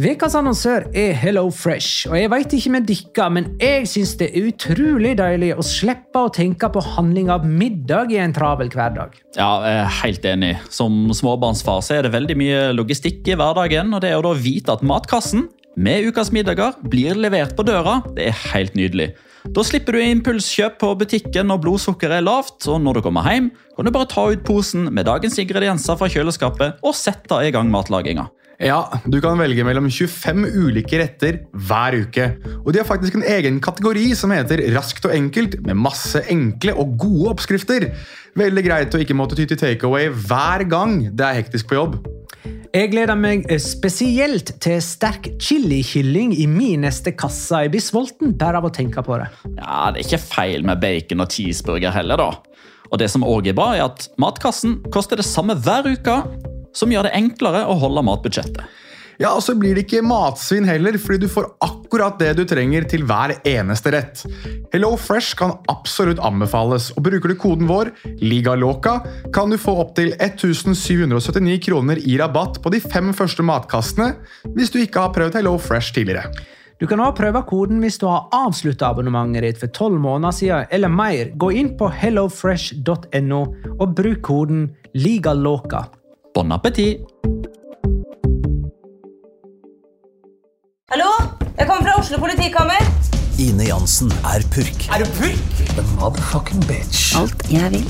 Vekas annonsør Hello Fresh, og jeg vet ikke med dere, men jeg synes det utrolig deilig å slippe å tenke på handling av middag i en travel hverdag. Ja, jeg er helt enig. Som småbarnsfar så er det veldig mye logistikk i hverdagen, og det å da vite at matkassen med ukas middager blir levert på døra, det er helt nydelig. Da slipper du impulskjøp på butikken når blodsukkeret er lavt, og når du kommer hjem, kan du bare ta ut posen med dagens ingredienser fra kjøleskapet og sette i gang matlaginga. Ja, du kan velge mellom 25 ulike retter hver uke. Og de har faktisk en egen kategori som heter Raskt og enkelt, med masse enkle og gode oppskrifter. Veldig greit å ikke måtte ty til takeaway hver gang det er hektisk på jobb. Jeg gleder meg spesielt til sterk chili-kylling i min neste kasse. Jeg blir sulten bare av å tenke på det. Ja, det er ikke feil med bacon og cheeseburger heller da. Og det som også er bra er at matkassen koster det samme hver uke, som gjør det enklere å holde matbudsjettet. Ja, og så blir det ikke matsvinn heller, fordi du får akkurat det du trenger til hver eneste rett. Hello Fresh kan absolutt anbefales, og bruker du koden vår, LIGALOCA, kan du få opp til 1779 kroner i rabatt på de 5 første matkassene, hvis du ikke har prøvd Hello Fresh tidligere. Du kan også prøve koden hvis du har avsluttet abonnementet ditt for 12 måneder siden, eller mer. Gå inn på hellofresh.no og bruk koden LIGALOCA. Bon appétit! Hallo? Jeg kommer fra Oslo politikammer. Ine Jansen er purk. Er du purk? The motherfucking bitch. Alt jeg vil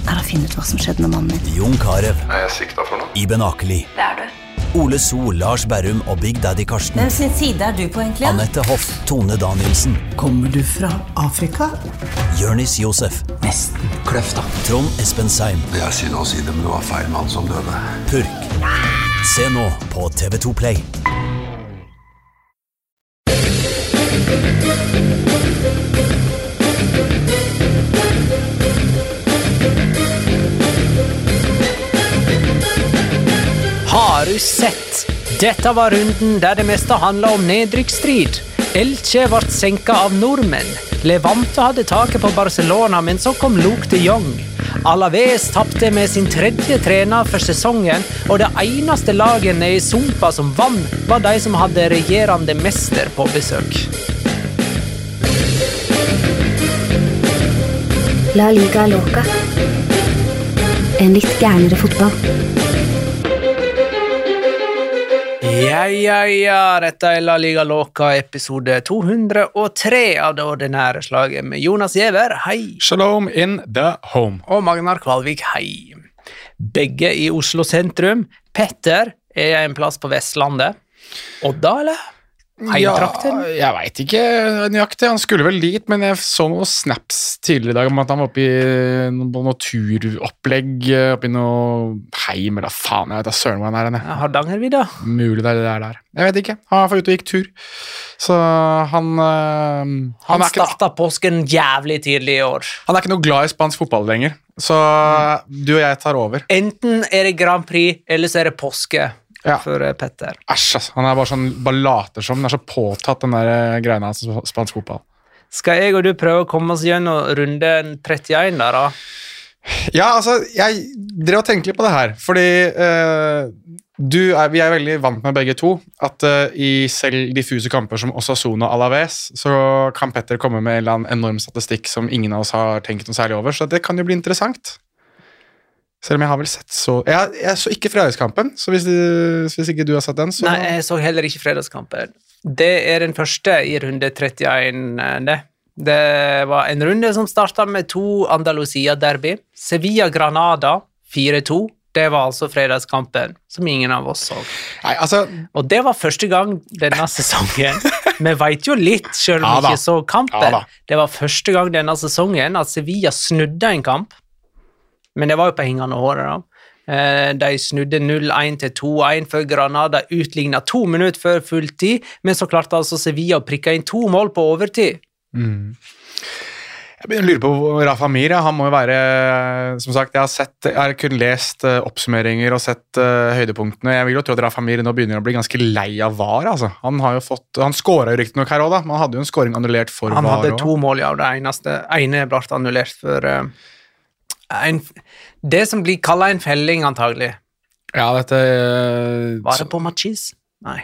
å finne ut hva som skjedde med mannen min. Jon Carew. Er jeg sikta for noe? Iben Akeli. Det er du. Ole So, Lars Berrum og Big Daddy Karsten. Hvem sin side er du på egentlig? Annette Hoff, Tone Danielsen. Kommer du fra Afrika? Jørnis Josef. Nesten kløfta. Trond Espen Seim. Det er synd å si det, men det var feil mann som døde. Purk. Se nå på TV2 Play. Har du sett? Dette var runden der det meste handlet om nedrykksstrid. Elche ble senket av nordmenn. Levante hadde taket på Barcelona, men så kom Luke de Jong. Alaves tappte med sin 3. trener for sesongen, og det eneste lagene i Sumpa som vann var de som hadde regjerende mester på besøk. La Liga Loca. En litt gærnere fotball. Ja, dette er La Liga Loca, episode 203 av det ordinære slaget med Jonas Giæver, hei. Shalom in the home. Og Magnar Kvalvik, hei. Begge i Oslo sentrum. Petter er en plass på Vestlandet. Odda, eller? Heimtrakten? Ja, jeg vet ikke nøyaktig. Han skulle vel dit, men jeg så noen snaps tidligere i dag om at han var oppe i noe turopplegg, oppe i noe heim, eller faen, jeg vet da søren hvor han er. Hardangervidda? Mulig det er der. Jeg vet ikke. Han var ute og gikk tur. Så han startet påsken jævlig tidlig i år. Han er ikke noe glad i spansk fotball lenger, så du og jeg tar over. Enten er det Grand Prix, eller så er det påske. Ja. For Petter. Æsj, altså. Han er bare sånn, bare later som, han er så påtatt den der greiene hans spansk fotball. Skal jeg og du prøve å komme oss gjennom runde 31 der da? Ja, altså, jeg drev og tenkte litt på det her, fordi vi er veldig vant med begge to, at i selv diffuse kamper som Osasuna og Alaves, så kan Petter komme med en eller annen enorm statistikk som ingen av oss har tenkt noe særlig over, så det kan jo bli interessant. Selv om jeg har vel sett så... Jeg så ikke fredagskampen, så hvis ikke du har sett den, så... Nei, jeg så heller ikke fredagskampen. Det er den første i runde 31, det. Det var en runde som startet med 2 Andalusia-derby. Sevilla-Granada 4-2. Det var altså fredagskampen, som ingen av oss så. Nei, altså... Og det var første gang denne sesongen. Vi vet jo litt, selv om vi ikke så kampen. Det var første gang denne sesongen at Sevilla snudde en kamp. Men det var jo på hengende håret da. De snudde 0-1 til 2-1 før Granada utlignet 2 minutter før fulltid, men så klarte altså Sevilla å prikke inn 2 mål på overtid. Jeg begynner å lure på Rafa Mir, han må jo være, som sagt, jeg har kun lest oppsummeringer og sett høydepunktene. Jeg vil jo tro at Rafa Mir nå begynner å bli ganske lei av VAR, altså. Han skåret jo riktig nok her også da, men han hadde jo en skåring annullert for VAR. Han hadde 2 mål, ja, og det ene ble annullert for... det som blir kallet en felling antagelig. Ja, dette... Var det på Machis? Nei.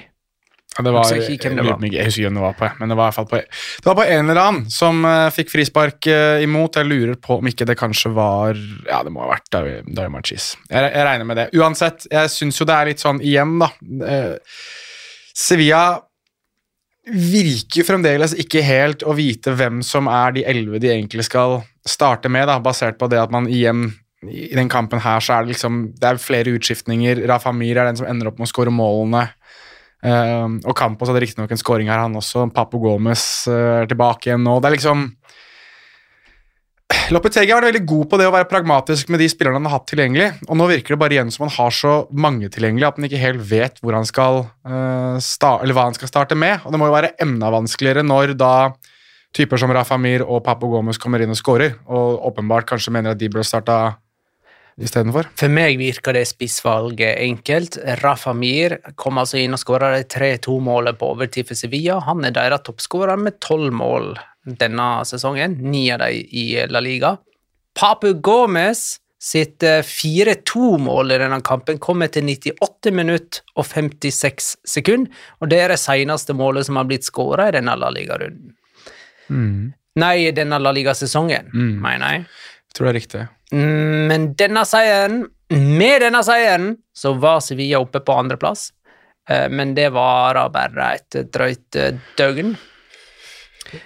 Ja, det var, Jeg husker ikke hvem det var. Jeg husker ikke hvem det var på, men det var i hvert fall det var på en eller annen som fikk frispark imot. Jeg lurer på om ikke det kanskje var, ja, det må ha vært Dario Marchis. Jeg regner med det. Uansett, jeg synes jo det er litt sånn igjen da. Sevilla virker fremdeles ikke helt å vite hvem som er de 11 de egentlig skal starte med, da, basert på det at man igjen i den kampen her så er det liksom, det er flere utskiftninger. Rafa Mir er den som ender opp med å skåre målene. Og Campos hadde riktig nok en scoring her, han også. Papu Gomez er tilbake igjen nå. Det er liksom Lopetegui har vært veldig god på det å være pragmatisk med de spillerne han har hatt tilgjengelig, og nå virker det bare igjen som han har så mange tilgjengelig at han ikke helt vet hvor han skal eller hva han skal starte med, og det må jo være enda vanskeligere når da typer som Rafa Mir og Papu Gomez kommer inn og scorer, og åpenbart kanskje mener at de bør starte i stedet for. For meg virker det spissvalget enkelt. Rafa Mir kom altså inn og skåret de 3-2-målet på overtid for Sevilla. Han er deres toppskårer med 12 mål denne sesongen, 9 av dem i La Liga. Papu Gomez sitt 4-2-mål i denne kampen kommer til 98 minutter og 56 sekunder, og det er det seneste målet som har blitt skåret i denne La Liga-runden. Nei, denne La Liga-sesongen, mener jeg. Jeg tror det er riktig. Men med denne seieren, så var Sevilla oppe på andreplass, men det var bare et drøyt døgn.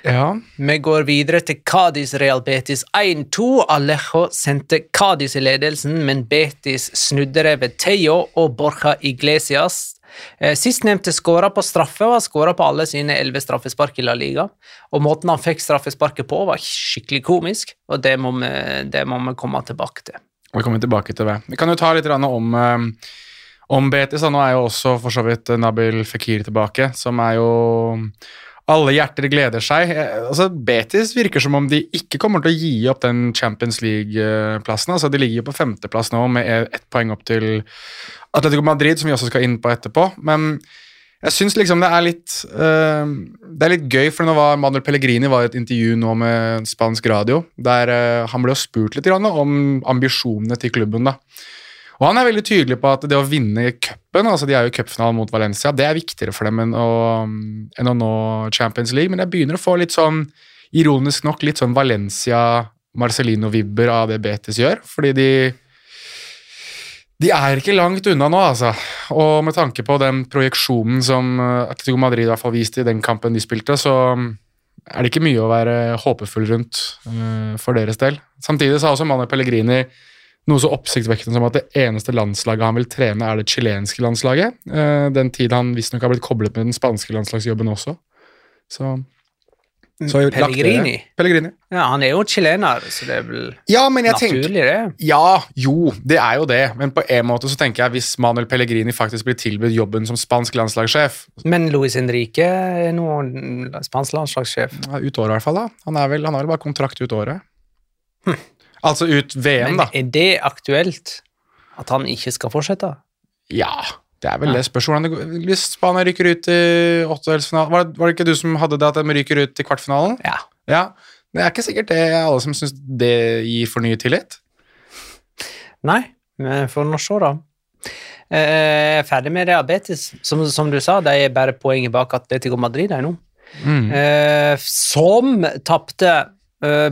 Ja. Vi går videre til Cádiz Real Betis 1-2. Alejo sendte Cádiz i ledelsen, men Betis snudde det ved Tejo og Borja Iglesias. Sistnevnte skåret på straffe og har skåret på alle sine 11 straffespark i La Liga, og måten han fikk straffesparket på var skikkelig komisk, og det må vi komme tilbake til. Vi kommer tilbake til det. Vi kan jo ta litt om Betis, nå er jo også for så vidt Nabil Fekir tilbake, som er jo alle hjerter gleder seg. Altså, Betis virker som om de ikke kommer til å gi opp den Champions League-plassen. Altså, de ligger jo på 5. plass nå med 1 poeng opp til Atletico Madrid, som vi også skal inn på etterpå. Men jeg synes liksom det er litt gøy, for nå var Manuel Pellegrini var i et intervju nå med spansk radio, der han ble jo spurt litt om ambisjonene til klubben da. Og han er veldig tydelig på at det å vinne cupen, altså de er jo i cupfinalen mot Valencia, det er viktigere for dem enn å nå Champions League, men jeg begynner å få litt sånn, ironisk nok, litt sånn Valencia-Marcelino-vibber av det Betis gjør, fordi de er ikke langt unna nå, altså. Og med tanke på den projeksjonen som Atletico Madrid i hvert fall viste i den kampen de spilte, så er det ikke mye å være håpefull rundt for deres del. Samtidig sa også Manuel Pellegrini noe så oppsiktsvekkende som at det eneste landslaget han vil trene er det chilenske landslaget. Den tid han visstnok har blitt koblet med den spanske landslagsjobben også. Så Pellegrini? Pellegrini. Ja, han er jo chilener, så det er vel naturlig det. Ja, jo, det er jo det. Men på en måte så tenker jeg hvis Manuel Pellegrini faktisk blir tilbudt jobben som spansk landslagssjef. Men Luis Enrique er nå spansk landslagssjef. Ja, ut året i hvert fall da. Han har vel bare kontrakt ut året. Altså ut VM, men da. Er det aktuelt at han ikke skal fortsette? Ja, det er vel det spørsmålet. Hvis Spania rykker ut i åttedelsfinalen, var det ikke du som hadde det at de rykker ut i kvartfinalen? Ja. Det er ikke sikkert det er alle som synes det gir for ny tillit. Nei, men for nå se da. Jeg er ferdig med det Betis. Som du sa, det er bare poenget bak Atletico Madrid nå. Som tappte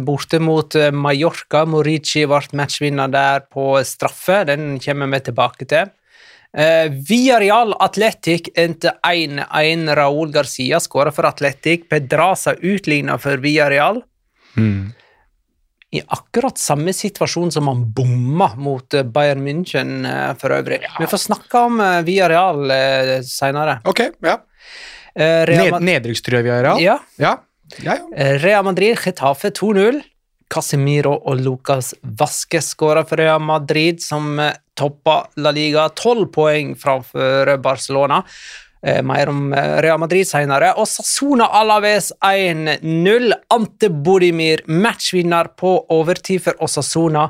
borte mot Mallorca. Morici ble matchvinner der på straffe. Den kommer vi tilbake til. Villarreal Athletic endte 1-1. Raúl Garcia skåret for Athletic. Pedraza utlignet for Villarreal. I akkurat samme situasjon som han bomma mot Bayern München for øvrig. Vi får snakke om Villarreal senere. Ok, ja. Nedrykkstrøye Villarreal? Ja. Real Madrid, Getafe 2-0. Casemiro og Lucas Vázquez skåret for Real Madrid, som toppa La Liga 12 poeng framfor Barcelona. Mer om Real Madrid senere. Og Osasuna Alaves 1-0. Ante Bodimir, matchvinner på overtid for Osasuna.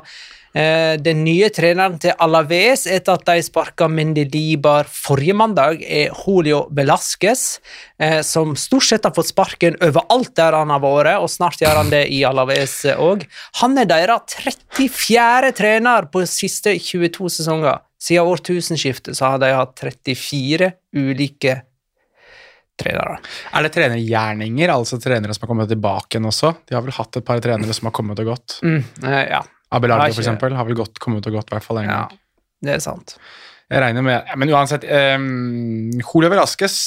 Den nye treneren til Alaves etter at de sparket Mendilibar forrige mandag er Julio Velázquez, som stort sett har fått sparken overalt der han har vært, og snart gjør han det i Alaves også. Han er deres 34. trener på siste 22 sesonger. Siden årtusenskiftet så har de hatt 34 ulike trenere. Det trenergjerninger, altså trenere som har kommet tilbake igjen også? De har vel hatt et par trenere som har kommet og gått? Ja. Abelardo for eksempel, har vel kommet og gått i hvert fall en gang. Ja, det sant. Jeg regner med, men uansett, Julio Velasquez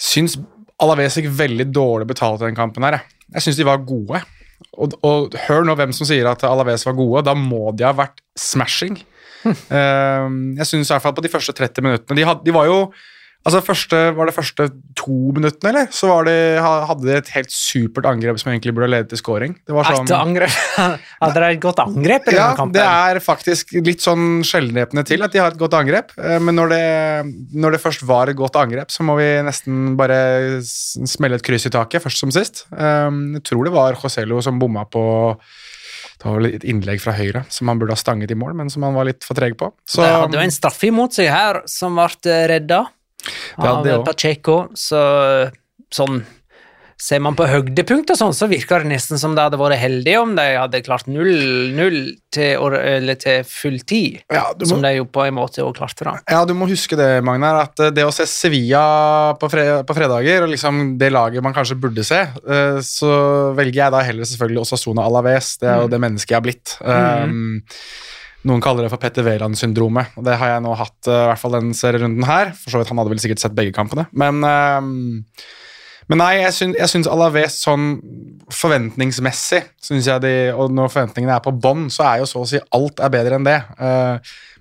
synes Alaves gikk veldig dårlig betalt i den kampen her. Jeg synes de var gode. Og hør nå hvem som sier at Alaves var gode, da må de ha vært smashing. Jeg synes i hvert fall på de første 30 minuttene, de var jo, altså var det første 2 minuttene, eller? Så hadde de et helt supert angrep som egentlig burde lede til scoring. Det var sånn... Hadde det et godt angrep i denne kampen? Ja, det faktisk litt sånn sjeldenhepende til at de har et godt angrep, men når det først var et godt angrep, så må vi nesten bare smelle et kryss i taket, først som sist. Jeg tror det var Joselu som bomma på... Det var et innlegg fra høyre som han burde ha stanget i mål, men som han var litt for treg på. Så... Det hadde jo en straffe imot seg her, som ble redda av Pacheco, så sånn ser man på høydepunkt og sånn, så virker det nesten som det hadde vært heldig om de hadde klart 0-0 til full tid, som de jo på en måte også klarte da. Ja, du må huske det, Magnar, at det å se Sevilla på fredager, og liksom det laget man kanskje burde se, så velger jeg da heller selvfølgelig Osasuna Alaves, det jo det mennesket jeg har blitt. Noen kaller det for Petter Wæland-syndromet, og det har jeg nå hatt, i hvert fall den serierunden her, for så vidt han hadde vel sikkert sett begge kampene, men nei, jeg synes Alaves sånn forventningsmessig, synes jeg og når forventningene på bånd, så jo så å si alt bedre enn det.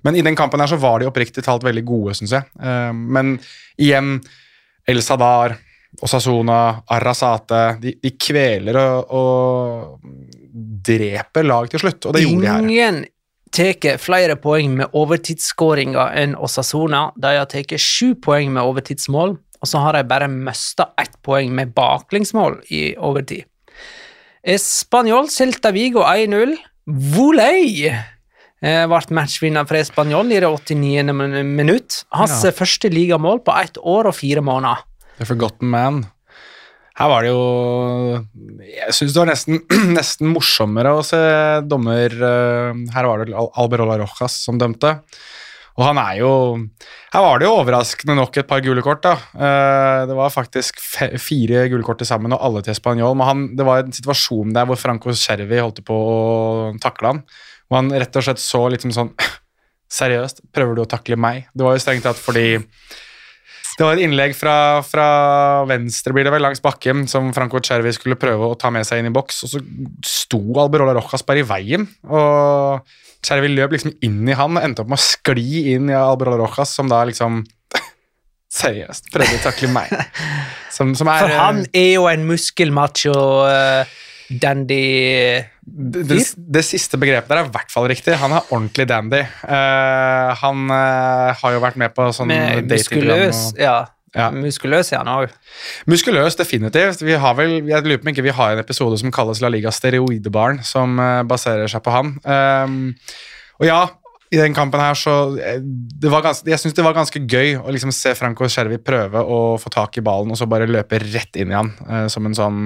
Men i den kampen her så var de oppriktig talt veldig gode, synes jeg. Men igjen, El Sadar, Osasuna, Arrasate, de kveler og dreper lag til slutt, og det gjorde de her. Ingen teker flere poeng med overtidsskåringer enn Osasuna. De har teket 7 poeng med overtidsmål, og så har de bare mistet 1 poeng med baklengsmål i overtid. Espanyol Celta Vigo 1-0. Voley ble matchvinner for Espanyol i det 89. minutt. Hans første ligamål på 1 år og 4 måneder. The Forgotten Man. Her var det jo... Jeg synes det var nesten morsommere å se dommer... Her var det Alberola Rojas som dømte. Og han jo... Her var det jo overraskende nok et par gule kort da. Det var faktisk 4 gule kort til sammen, og alle til Espanyol. Men det var en situasjon der hvor Franco Cervi holdt på å takle han. Og han rett og slett så liksom sånn, seriøst, prøver du å takle meg? Det var jo strengt tatt fordi... Det var et innlegg fra venstre, blir det vel, langs bakken, som Franco Cervi skulle prøve å ta med seg inn i boks, og så sto Alberola Rojas bare i veien, og Cervi løp liksom inn i han, og endte opp med å skli inn i Alberola Rojas, som da liksom, seriøst, prøvde å takle meg. For han jo en muskelmacho dandy. Det siste begrepet der i hvert fall riktig. Han ordentlig dandy. Han har jo vært med på sånn muskuløs, muskuløs han også. Muskuløs, definitivt. Jeg lurer på om ikke vi har en episode som kalles La Liga Steroidebarn, som baserer seg på han. Og ja, i den kampen her så jeg synes det var ganske gøy å liksom se Franco Cervi prøve å få tak i ballen og så bare løpe rett inn i han som en sånn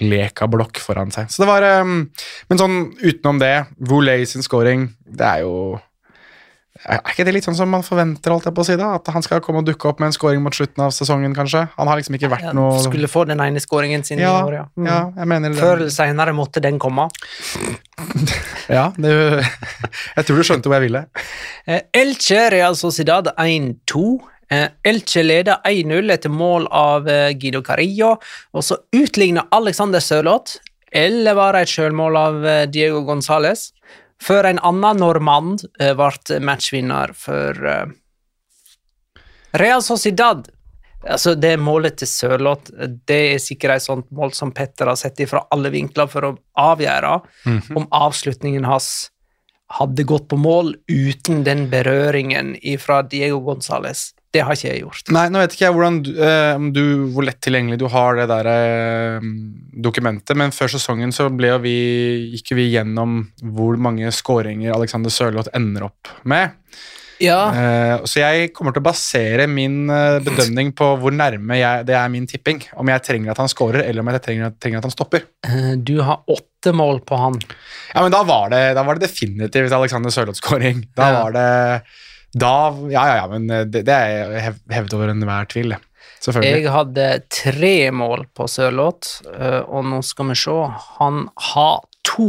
lekablokk foran seg. Så det var, men sånn utenom det, Voley sin scoring, det jo... ikke det litt sånn som man forventer, alt jeg på å si da? At han skal komme og dukke opp med en scoring mot slutten av sesongen, kanskje? Han har liksom ikke vært noe... Skulle få den ene scoringen sin i år, ja. Ja, jeg mener det. Før eller senere måtte den komme. Ja, jeg tror du skjønte hvor jeg ville. Elche Real Sociedad 1-2. Elche leder 1-0 etter mål av Guido Carrillo, og så utligner Alexander Sørloth, eller var det et selvmål av Diego González, før en annen normand ble matchvinner for Real Sociedad. Altså det målet til Sørloth, det sikkert et sånt mål som Petter har sett ifra alle vinkler for å avgjøre om avslutningen hans hadde gått på mål uten den berøringen fra Diego González. Det har ikke jeg gjort. Nei, nå vet ikke jeg hvor lett tilgjengelig du har det der dokumentet, men før sesongen så gikk vi gjennom hvor mange skåringer Alexander Sørloth ender opp med. Ja. Så jeg kommer til å basere min bedømning på hvor nærme det min tipping, om jeg trenger at han skårer, eller om jeg trenger at han stopper. Du har 8 mål på han. Ja, men da var det definitivt Alexander Sørloth-skåring. Da var det... men det hevd over enhver tvil. Selvfølgelig. Jeg hadde 3 mål på Sørloth, og nå skal vi se. Han har 2.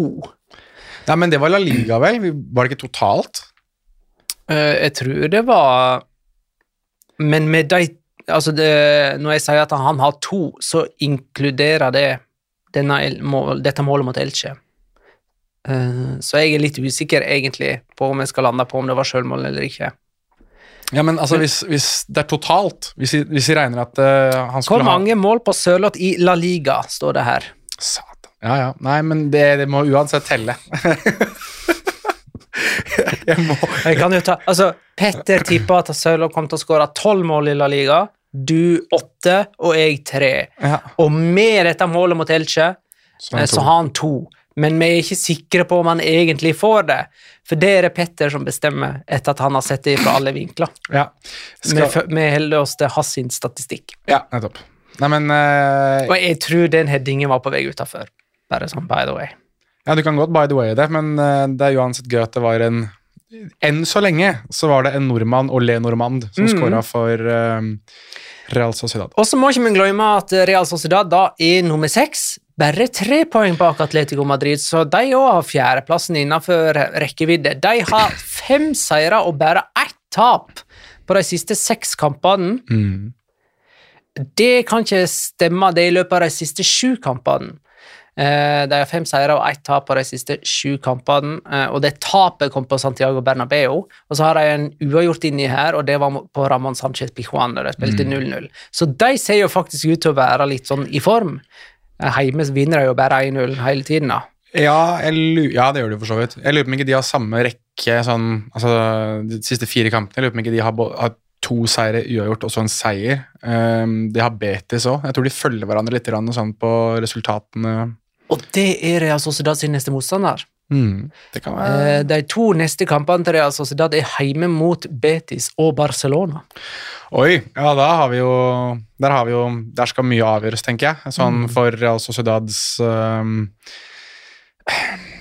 Ja, men det var La Liga, vel? Var det ikke totalt? Jeg tror det var... Men med de... Altså, når jeg sier at han har 2, så inkluderer det dette målet mot Elche. Så jeg litt usikker egentlig på om jeg skal lande på om det var selvmål eller ikke. Ja, men altså, hvis det totalt, hvis vi regner at han skulle Hvor mange mål på Sørloth I La Liga, står det her? Satan. Ja. Nei, men det må uansett telle. Jeg kan jo ta... Altså, Petter tippet at Sørloth kom til å skåre 12 mål I La Liga, du 8, og jeg 3. Ja. Og med dette målet mot Elche, så har han 2. Men vi ikke sikre på om han egentlig får det, for det det Petter som bestemmer etter at han har sett det fra alle vinkler. Ja. Vi holder oss til hans statistikk. Ja, nettopp. Nei, men... Og jeg tror den headingen var på vei utenfor. Bare sånn, by the way. Ja, du kan godt by the way det, men det uansett gøy at det var enn så lenge så var det en nordmann, Ole Normand, som skåret for Real Sociedad. Og så må ikke vi glemme at Real Sociedad da nummer 6, bare 3 poeng bak Atletico Madrid, så de også har 4. plassen innenfor rekkevidde. De har 5 seire og bare 1 tap på de siste 6 kampene. Det kan ikke stemme, det I løpet av de siste 7 kampene. De har 5 seire og 1 tap på de siste 7 kampene, og det tapet kom på Santiago Bernabeu, og så har de en uavgjort inni her, og det var på Ramón Sánchez Pizjuán, der de spilte 0-0. Så de ser jo faktisk ut til å være litt sånn I form. Heime vinner de jo bare 1-0 hele tiden da. Ja, det gjør de for så vidt. Jeg lurer på om ikke de har samme rekke, sånn, altså de siste 4 kampene, jeg lurer på om ikke de har 2 seire uavgjort og så en seier. De har Betis også. Jeg tror de følger hverandre litt sånn på resultatene. Og det Real Sociedad sin neste motstander. Det kan være... De 2 neste kampene til Real Sociedad heime mot Betis og Barcelona. Oi, ja, der skal mye avgjøres, tenker jeg. Sånn for Real Sociedads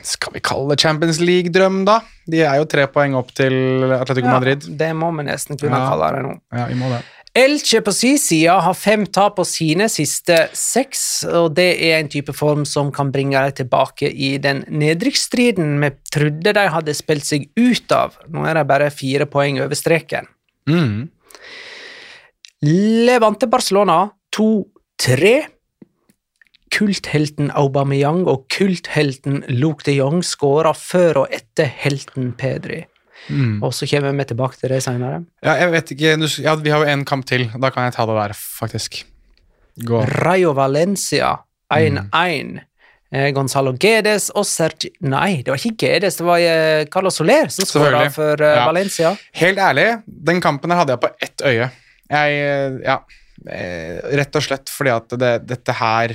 skal vi kalle det Champions League-drøm da? De jo 3 poeng opp til Atletico Madrid. Det må vi nesten kunne kalle det nå. Ja, vi må det. Elche på sin side har 5 tap på sine siste 6, og det en type form som kan bringe dem tilbake I den nedrykksstriden vi trodde de hadde spilt seg ut av. Nå det bare 4 poeng over streken. Levante Barcelona 2-3. Kulthelten Aubameyang og kulthelten Luke de Jong skårer før og etter helten Pedri. Og så kommer vi tilbake til det senere. Ja, jeg vet ikke, vi har jo en kamp til, da kan jeg ta det der, faktisk. Gå. Rayo Valencia 1-1. Gonzalo Guedes og Sergi... Nei, det var ikke Guedes, det var Carlos Soler som skåret for Valencia. Helt ærlig, den kampen her hadde jeg på ett øye. Rett og slett fordi at dette her...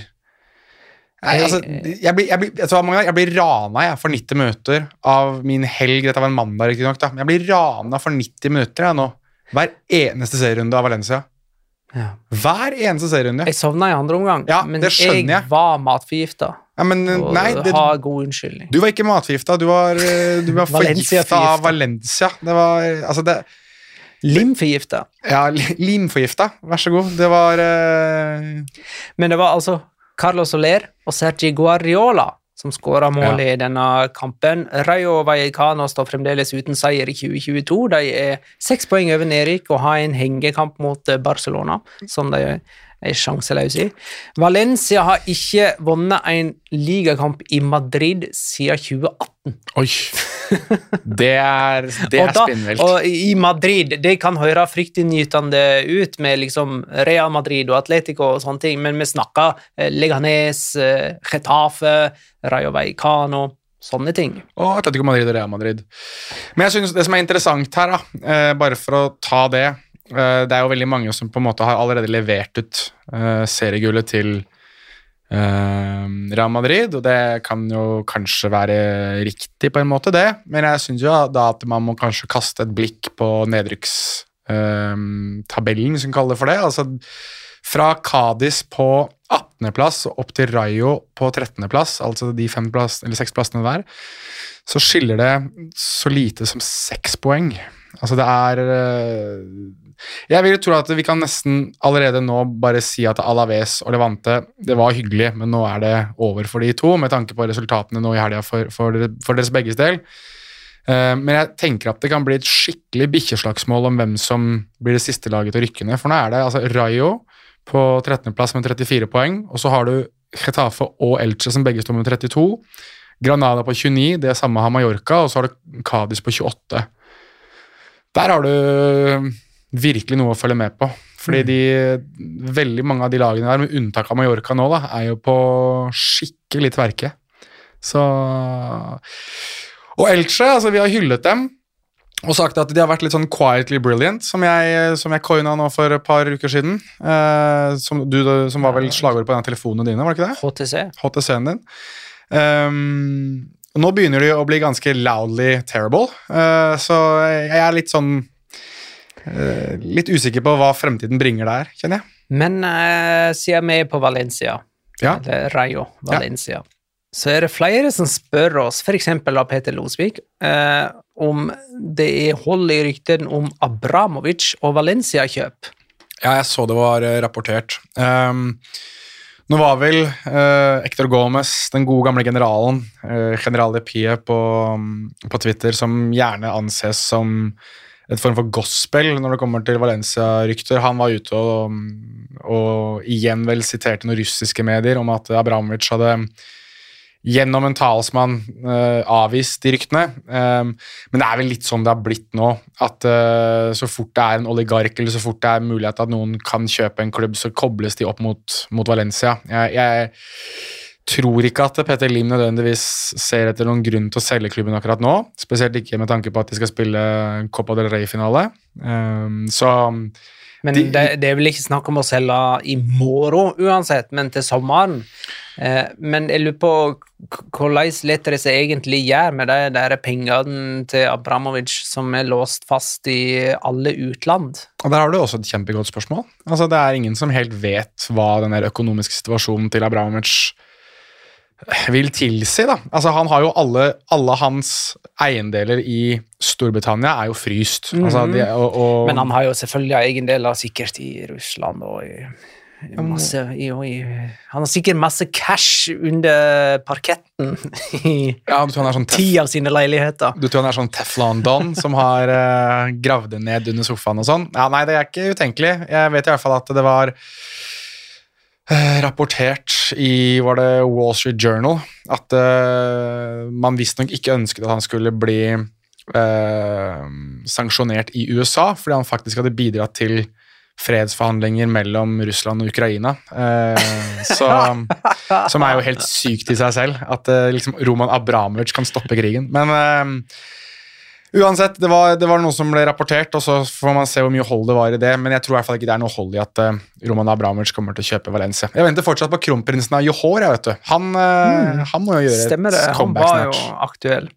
Jeg blir rana for 90 minutter av min helg, dette var en mandag riktig nok da, men jeg blir rana for 90 minutter nå, hver eneste serierunde av Valencia. Hver eneste serierunde. Jeg sovnet I andre omgang, men jeg var matforgiftet. Har god unnskyldning. Du var ikke matforgiftet, du var forgiftet av Valencia. Det var, altså det... Limforgiftet. Ja, limforgiftet, vær så god. Det var... Men det var altså... Carlos Soler og Sergi Guardiola som skåret mål I denne kampen. Rayo Vallecano står fremdeles uten seier I 2022. De 6 poeng over nedrykk og har en hengekamp mot Barcelona, som de sjanseløse I. Valencia har ikke vunnet en ligakamp I Madrid siden 2018. Oi, det spinnvilt. Og I Madrid, det kan høre fryktinngytende ut med liksom Real Madrid og Atletico og sånne ting, men vi snakker Leganés, Getafe, Rayo Vallecano, sånne ting. Og Atletico Madrid og Real Madrid. Men jeg synes det som interessant her, bare for å ta det, det jo veldig mange som på en måte har allerede levert ut seriegullet til Real Madrid, og det kan jo kanskje være riktig på en måte det, men jeg synes jo da at man må kanskje kaste et blikk på nedrykkstabellen, som kaller det for det, altså fra Cádiz på 18. plass og opp til Rayo på 13. plass, altså de 6 plassene hver, så skiller det så lite som 6 poeng. Altså det Jeg vil tro at vi kan nesten allerede nå bare si at Alaves og Levante, det var hyggelig, men nå det over for de to, med tanke på resultatene nå i helga for deres begges del. Men jeg tenker at det kan bli et skikkelig bikkjeslagsmål om hvem som blir det siste laget til å rykke ned, for nå det altså Rayo på 13. plass med 34 poeng, og så har du Getafe og Elche som begge står med 32, Granada på 29, det samme har Mallorca, og så har du Cadiz på 28. Der har du virkelig noe å følge med på, fordi veldig mange av de lagene der, med unntak av Mallorca nå da, jo på skikkelig tverke. Så... Og Elche, altså vi har hyllet dem, og sagt at de har vært litt sånn quietly brilliant, som jeg coina nå for et par uker siden, som var vel slagord på den telefonen dine, var det ikke det? HTC-en din. Nå begynner de å bli ganske loudly terrible, så jeg litt sånn litt usikker på hva fremtiden bringer der, kjenner jeg. Men siden vi på Valencia, eller Rayo Valencia, så det flere som spør oss, for eksempel av Peter Losvik, om det hold i rykten om Abramovic og Valencia-kjøp. Ja, jeg så det var rapportert. Nå var vel Hector Gómez, den gode gamle generalen, General de Pie på Twitter, som gjerne anses som et form for gospel når det kommer til Valencia-rykter. Han var ute og igjen vel siterte noen russiske medier om at Abramovic hadde gjennom en talsmann avvist de ryktene, men det vel litt sånn det har blitt nå, at så fort det en oligark, eller så fort det mulighet at noen kan kjøpe en klubb, så kobles de opp mot Valencia. Jeg tror ikke at Peter Lim nødvendigvis ser etter noen grunn til å selge klubben akkurat nå, spesielt ikke med tanke på at de skal spille Copa del Rey-finale. Men det vel ikke snakk om å selge i morgen uansett, men til sommeren. Men jeg lurer på hvordan leter det seg egentlig gjør med de der pengene til Abramovic som låst fast i alle utland. Og der har du også et kjempegodt spørsmål. Altså, det ingen som helt vet hva den der økonomiske situasjonen til Abramovic vil tilsi, da. Altså, han har jo alle hans eiendeler i Storbritannia jo fryst. Altså, men han har jo selvfølgelig eiendeler sikkert i Russland og han har sikkert masse cash under parketten i du tror han 10 av sine leiligheter. Du tror han sånn Teflon Don som har gravd det ned under sofaen og sånn? Ja, nei, det ikke utenkelig. Jeg vet i hvert fall at det var rapportert var det Wall Street Journal at man visstnok ikke ønsket at han skulle bli sanksjonert i USA, fordi han faktisk hadde bidratt til fredsforhandlinger mellom Russland og Ukraina, som jo helt sykt i seg selv, at liksom Roman Abramovic kan stoppe krigen. Men uansett, det var noe som ble rapportert, og så får man se hvor mye hold det var i det, men jeg tror i hvert fall ikke det noe hold i at Roman Abramovic kommer til å kjøpe Valencia. Jeg venter fortsatt på kronprinsen av Johor, jeg vet du. Han må jo gjøre Stemmer det, et comeback snart. Han var jo aktuell.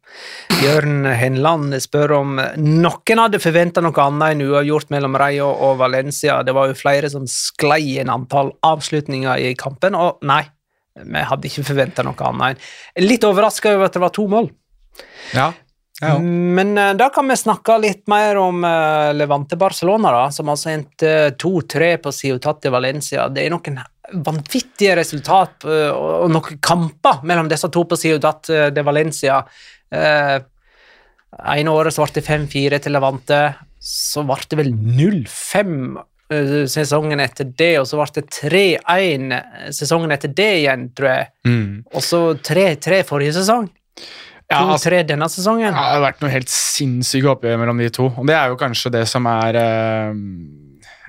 Jørn Henland spør om noen hadde forventet noe annet enn uavgjort mellom Rayo og Valencia. Det var jo flere som sklei en antall avslutninger i kampen, og nei, vi hadde ikke forventet noe annet. Litt overrasket over at det var 2 mål. Ja. Men da kan vi snakke litt mer om Levante Barcelona da, som altså endte 2-3 på Ciutat de Valencia. Det noen vanvittige resultat og noen kamper mellom disse to på Ciutat de Valencia. En året så ble det 5-4 til Levante, så ble det vel 0-5 sesongen etter det, og så ble det 3-1 sesongen etter det igjen, tror jeg. Og så 3-3 forrige sesong. 2-3 denne sesongen. Ja, det har vært noe helt sinnssyke oppgjør mellom de to, og det jo kanskje det som jeg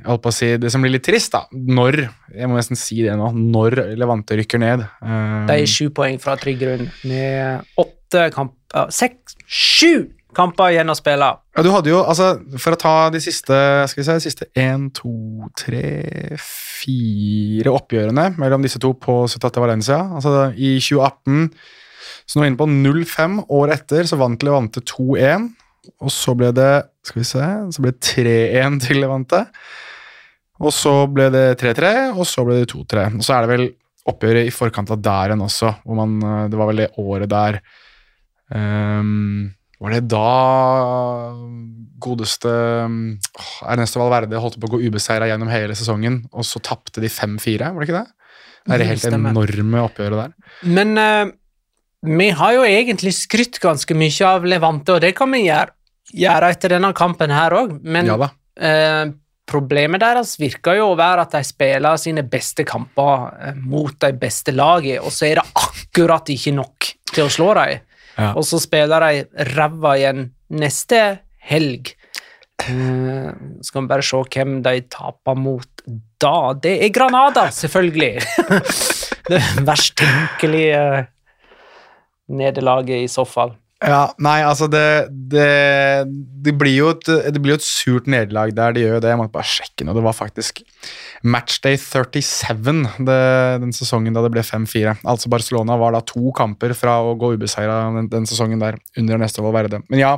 holdt på å si, det som blir litt trist da, jeg må nesten si det nå, når Levante rykker ned. Det 7 poeng fra trygg grunn, med 7 kamper igjen å spille. Ja, du hadde jo, altså, for å ta de siste, skal vi se, de siste 1, 2, 3, 4 oppgjørene mellom disse to på Ciutat de Valencia, altså i 2018, så nå inne på 0-5 år etter, så vant Levante 2-1, og så ble det, skal vi se, så ble det 3-1 til Levante, og så ble det 3-3, og så ble det 2-3. Og så det vel oppgjøret i forkant av der enn også, hvor det var vel det året der Var det da godeste Ernesto Valverde holdt på å gå ubeseiret gjennom hele sesongen, og så tappte de 5-4, var det ikke det? Det er det helt enorme oppgjøret der. Men vi har jo egentlig skrytt ganske mye av Levante, og det kan vi gjøre etter denne kampen her også, men Ja da. Problemet deres virker jo å være at de spiller sine beste kamper mot de beste laget, og så er det akkurat ikke nok til å slå dem. Ja. Og så spiller de ræva igjen neste helg. Skal vi bare se hvem de taper mot da. Det er Granada, selvfølgelig. Det verst tenkelige nederlaget i så fall. Ja, nei, altså det blir jo et surt nederlag der, det gjør jo det. Jeg måtte bare sjekke nå, det var faktisk matchday 37 den sesongen da det ble 5-4. Altså Barcelona var da 2 kamper fra å gå ubeseiret den sesongen der, under Ernesto Valverde. Men ja,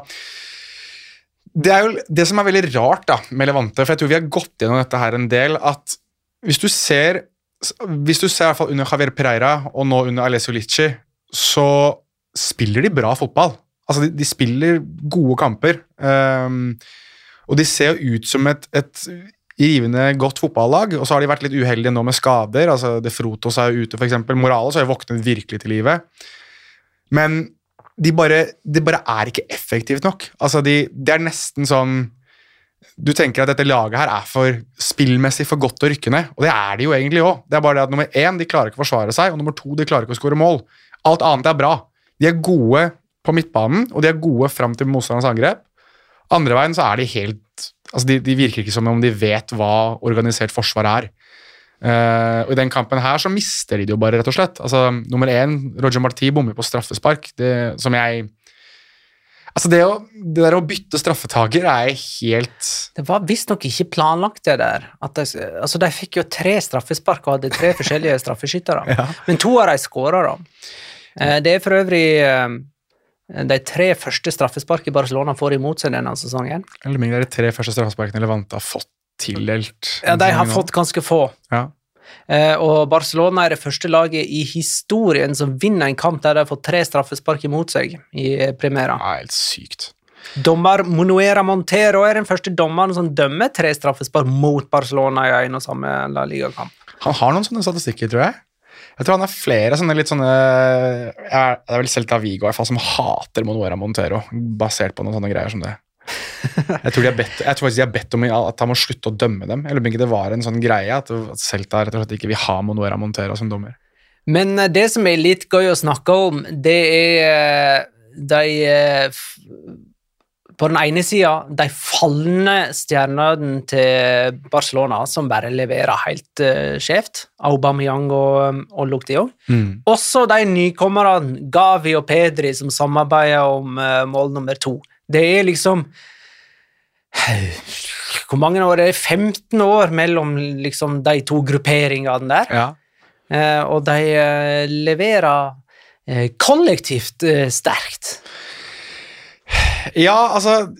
det er jo det som er veldig rart da, med Levante, for jeg tror vi har gått gjennom dette her en del, at hvis du ser i hvert fall under Javier Pereira, og nå under Alessio Licci, så spiller de bra fotball. Altså, de spiller gode kamper. Og de ser jo ut som et rivende godt fotballag, og så har de vært litt uheldige nå med skader. Altså, De Frutos er jo ute, for eksempel. Morales har jo våknet virkelig til livet. Men det bare er ikke effektivt nok. Altså, det er nesten sånn du tenker at dette laget her er for spillmessig for godt å rykke ned, og det er de jo egentlig også. Det er bare det at nummer 1, de klarer ikke å forsvare seg, og nummer 2, de klarer ikke å skåre mål. Alt annet er bra. De er gode på midtbanen, og de er gode frem til motstanderens angrep. Andre veien så er de helt... Altså de virker ikke som om de vet hva organisert forsvar er. Og i den kampen her så mister de det jo bare, rett og slett. Altså, nummer 1, Roger Martí bommer på straffespark. Det der å bytte straffetaker er helt... Det var visst nok ikke planlagt det der. De fikk jo 3 straffespark og hadde 3 forskjellige straffeskyttere. Ja. Men 2 av de skårer da. Det er for øvrig de 3 første straffespark i Barcelona får imot seg denne sesongen. Eller det er de 3 første straffesparkene Levante har fått tildelt. Ja, de har fått ganske få. Ja. Og Barcelona er det første laget i historien som vinner en kamp der de har fått 3 straffespark imot seg i Primera. Ja, helt sykt. Dommer Manuel Montero er den første dommeren som dømmer 3 straffespark mot Barcelona i en og samme La Liga-kamp. Han har noen sånne statistikker, tror jeg. Jeg tror han har flere sånne litt sånne... Det er vel Celta Vigo i hvert fall som hater Manuel Montero, basert på noen sånne greier som det. Jeg tror faktisk de har bedt om at han må slutte å dømme dem. Eller om ikke det var en sånn greie at Celta rett og slett ikke vil ha Manuel Montero som dommer. Men det som er litt gøy å snakke om, det er på den ene siden de fallende stjernene til Barcelona som bare leverer helt skjevt, Aubameyang og Luke de Jong. Også de nykommerne Gavi og Pedri som samarbeider om mål nummer 2. Det er liksom hvor mange år er det? 15 år mellom liksom de 2 grupperingene der. Ja. Og de leverer kollektivt sterkt. Ja, altså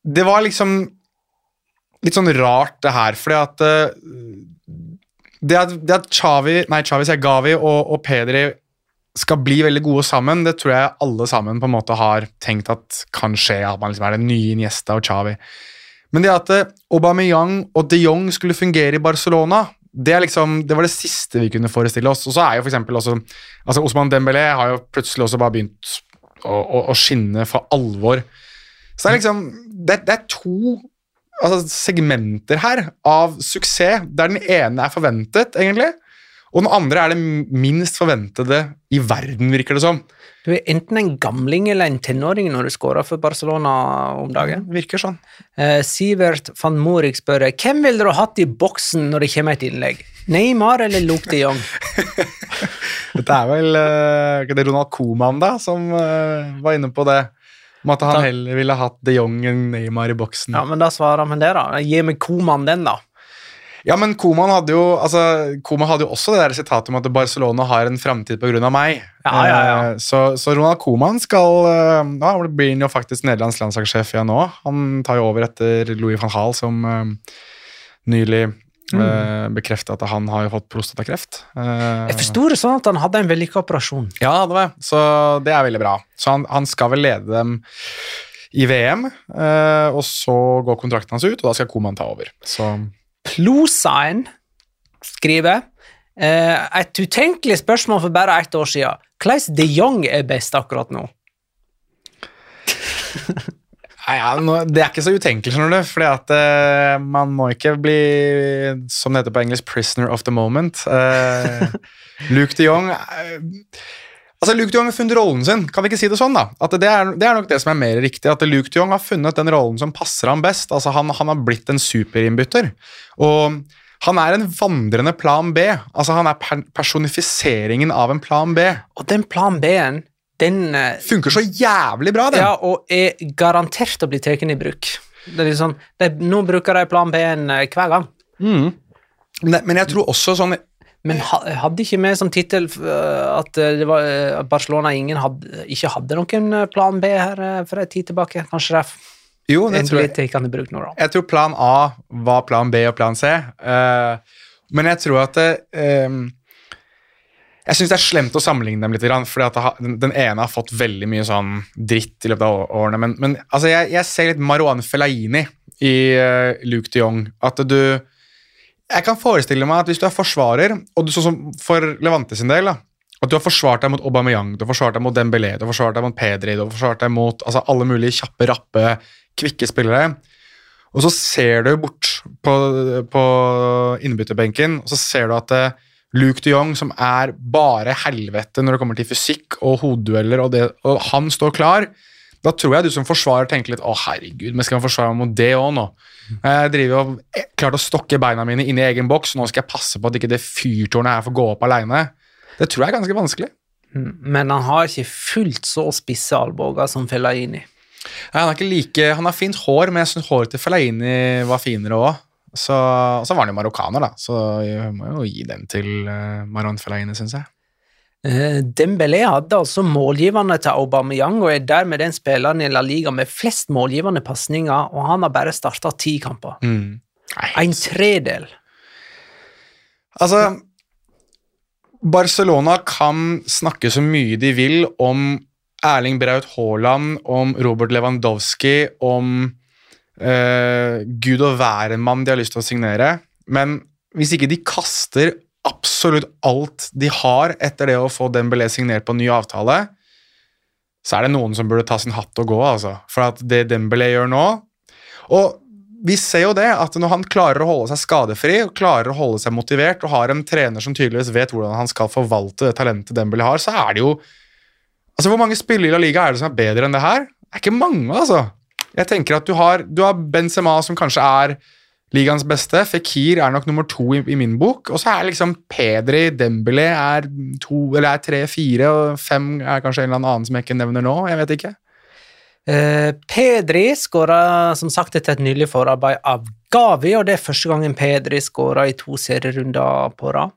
det var liksom litt sånn rart det her, fordi at det at Gavi og Pedri skal bli veldig gode sammen, det tror jeg alle sammen på en måte har tenkt at kan skje, at man liksom er den nye Iniesta og Xavi. Men det at Aubameyang og De Jong skulle fungere i Barcelona, det var det siste vi kunne forestille oss. Og så er jo for eksempel også, altså Ousmane Dembélé har jo plutselig også bare begynt å skinne for alvor. Så det er liksom, det er 2 segmenter her av suksess, der den ene er forventet, egentlig, og den andre er det minst forventede i verden, virker det som. Du er enten en gamling eller en tenåring når du skårer for Barcelona om dagen. Virker sånn. Sivert van Morik spør, hvem ville du hatt i boksen når det kommer et innlegg? Neymar eller Luke de Jong? Dette er vel det er Ronald Koeman da, som var inne på det, om at han heller ville hatt de Jong enn Neymar i boksen. Ja, men da svarer han det da. Gi meg Koeman den da. Ja, men Koeman hadde jo også det der sitatet om at Barcelona har en fremtid på grunn av meg. Ja. Så Ronald Koeman blir han jo faktisk Nederlands landslagssjef igjen nå. Han tar jo over etter Louis van Gaal, som nylig Bekreftet at han har jo fått prostatakreft. Jeg forstår det sånn at han hadde en vellykket operasjon. Ja, det var så det veldig bra. Så han skal vel lede dem i VM, og så går kontrakten hans ut, og da skal Koeman ta over. Så Plosain skriver et utenkelig spørsmål for bare 1 år siden. Hvordan de Jong best akkurat nå? Det ikke så utenkelig, skjønner du, fordi at man må ikke bli, som det heter på engelsk, prisoner of the moment. Luke de Jong Luke de Jong har funnet rollen sin, kan vi ikke si det sånn da? At det nok det som mer riktig, at Luke de Jong har funnet den rollen som passer ham best. Altså han har blitt en superinnbytter, og han en vandrende plan B. Altså han personifiseringen av en plan B. Og den plan B-en, den funker så jævlig bra, den. Ja, og garantert å bli teken i bruk. Det liksom, nå bruker de plan B-en hver gang. Men jeg tror også sånn... Men hadde ikke med som titel at det var Barcelona ikke hadde noen plan B her for en tid tilbake? Kanskje det jo, det tror jeg. Kan bruk nå, da. Jeg tror plan A var plan B og plan C. Men jeg tror at jeg synes det slemt å sammenligne dem litt, fordi at den ene har fått veldig mye sånn dritt i løpet av årene. Men altså, jeg ser litt Marouane Fellaini i Luke de Jong. At jeg kan forestille meg at hvis du forsvarer, og du sånn som for Levante sin del, at du har forsvart deg mot Aubameyang, du har forsvart deg mot Dembélé, du har forsvart deg mot Pedri, du har forsvart deg mot alle mulige kjappe, rappe, kvikke spillere, og så ser du bort på innbytterbenken, og så ser du at Luke de Jong, som bare helvete når det kommer til fysikk og hoveddueller, og han står klar, da tror jeg du som forsvarer tenker litt, herregud, men skal jeg forsvare meg mot det også nå? Jeg driver og klart å stokke beina mine inn i egen boks, nå skal jeg passe på at ikke det fyrtårnet her får gå opp alene. Det tror jeg er ganske vanskelig. Men han har ikke fullt så spisse alboger som Fellaini. Nei, han har fint hår, men jeg synes håret til Fellaini var finere også. Så var han jo marokkaner da, så jeg må jo gi den til Marouane Fellaini, synes jeg. Dembélé hadde altså målgiverne til Aubameyang og dermed den spilleren i La Liga med flest målgivende passninger, og han har bare startet 10 kamper. En tredel. Altså, Barcelona kan snakke så mye de vil om Erling Braut Haaland, om Robert Lewandowski, om Gud og værenmann de har lyst til å signere, men hvis ikke de kaster absolutt alt de har etter det å få Dembélé signert på en ny avtale, så det noen som burde ta sin hatt og gå, altså. For at det Dembélé gjør nå, og vi ser jo det, at når han klarer å holde seg skadefri, og klarer å holde seg motivert, og har en trener som tydeligvis vet hvordan han skal forvalte det talentet Dembélé har, så det jo, altså hvor mange spillere i La Liga det som bedre enn det her? Det ikke mange, altså. Jeg tenker at du har Benzema som kanskje ligaens beste, Fekir nok nummer 2 i min bok, og så liksom Pedri, Dembélé 2, eller 3, 4, og 5 kanskje en eller annen som jeg ikke nevner nå, jeg vet ikke. Pedri skåret som sagt etter et nylig forarbeid av Gavi, og det første gangen Pedri skåret i 2 serierunder på rad.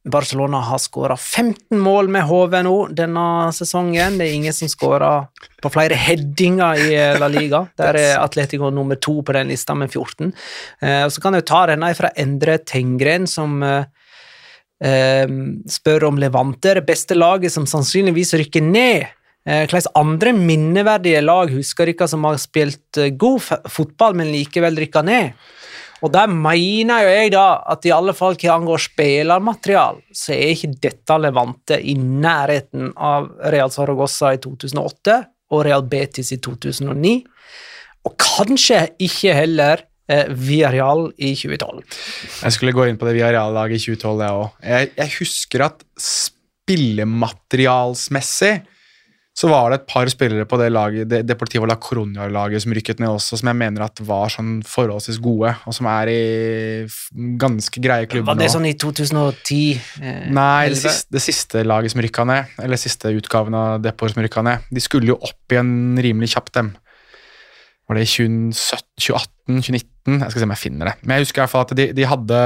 Barcelona har skåret 15 mål med HV nå denne sesongen. Det ingen som skårer på flere headinger i La Liga. Der Atletico nummer 2 på den lista med 14. Og så kan jeg ta denne fra Endre Tengren, som spør om Levante, det beste laget som sannsynligvis rykker ned. Hvilke andre minneverdige lag husker dere som har spilt god fotball, men likevel rykket ned? Og der mener jo jeg da at i alle fall hva angår spillermaterial, så ikke dette Levante i nærheten av Real Zaragoza i 2008 og Real Betis i 2009, og kanskje ikke heller Villarreal i 2012. Jeg skulle gå inn på det Villarreal-laget i 2012, jeg også. Jeg husker at spillematerialsmessig så var det et par spillere på det laget, det Deportivo La Coruña-laget som rykket ned også, som jeg mener at var sånn forholdsvis gode, og som i ganske greie klubber nå. Var det sånn i 2010? Nei, det siste laget som rykket ned, eller siste utgaven av Depor som rykket ned, de skulle jo opp igjen rimelig kjapt dem. Var det i 2018, 2019? Jeg skal se om jeg finner det. Men jeg husker i hvert fall at de hadde...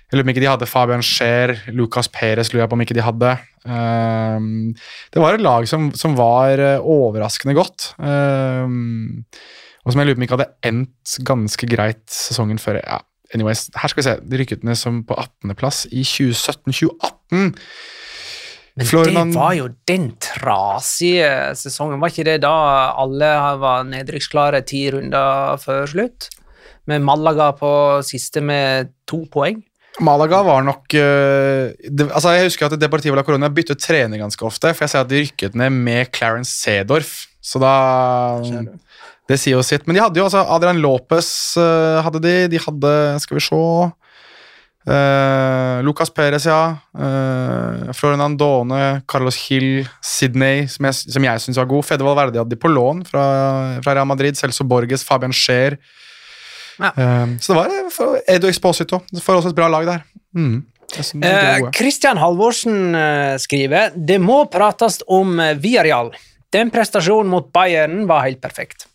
Jeg lurer på om ikke de hadde Fabian Scher, Lucas Perez, lurer jeg på om ikke de hadde. Det var et lag som var overraskende godt, og som jeg lurer på om ikke hadde endt ganske greit sesongen før. Ja, anyways, her skal vi se. De rykket ned som på 18. plass i 2017-2018. Men det var jo den trasige sesongen. Var ikke det da alle var nedrykksklare 10 runder før slutt? Med Malaga på siste med 2 poeng. Malaga var nok altså jeg husker at Deportivo La Coruña byttet trener ganske ofte, for jeg ser at de rykket ned med Clarence Seedorf, så da det sier jo sitt. Men de hadde jo altså Adrian Lopez hadde de hadde, skal vi se, Lucas Perez, Florian Andone, Carlos Gil, Sidney, som jeg synes var god. Fede Valverde hadde de på lån fra Real Madrid, Celso Borges, Fabian Scheer. Ja. Så det var Edu Exposito. Det får også et bra lag der. Christian Halvorsen skriver: Det må prates om Villarreal. Den prestasjonen mot Bayern var helt perfekt.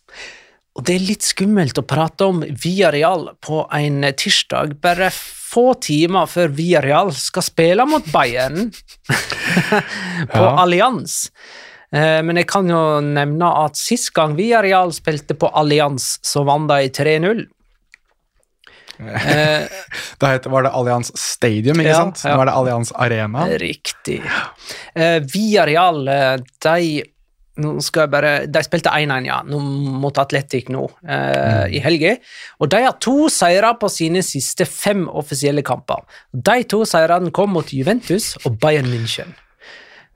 Og det er litt skummelt å prate om Villarreal på en tirsdag, bare få timer før Villarreal skal spille mot Bayern på Allianz. Men jeg kan jo nevne at sist gang Villarreal spilte på Allianz, så vant de 3-0. Da var det Allianz Stadium, ikke sant? Nå er det Allianz Arena. Riktig. Villarreal, de spilte 1-1 mot Atletic nå i helgen, og de har 2 seirer på sine siste 5 offisielle kamper. De 2 seirene kom mot Juventus og Bayern München,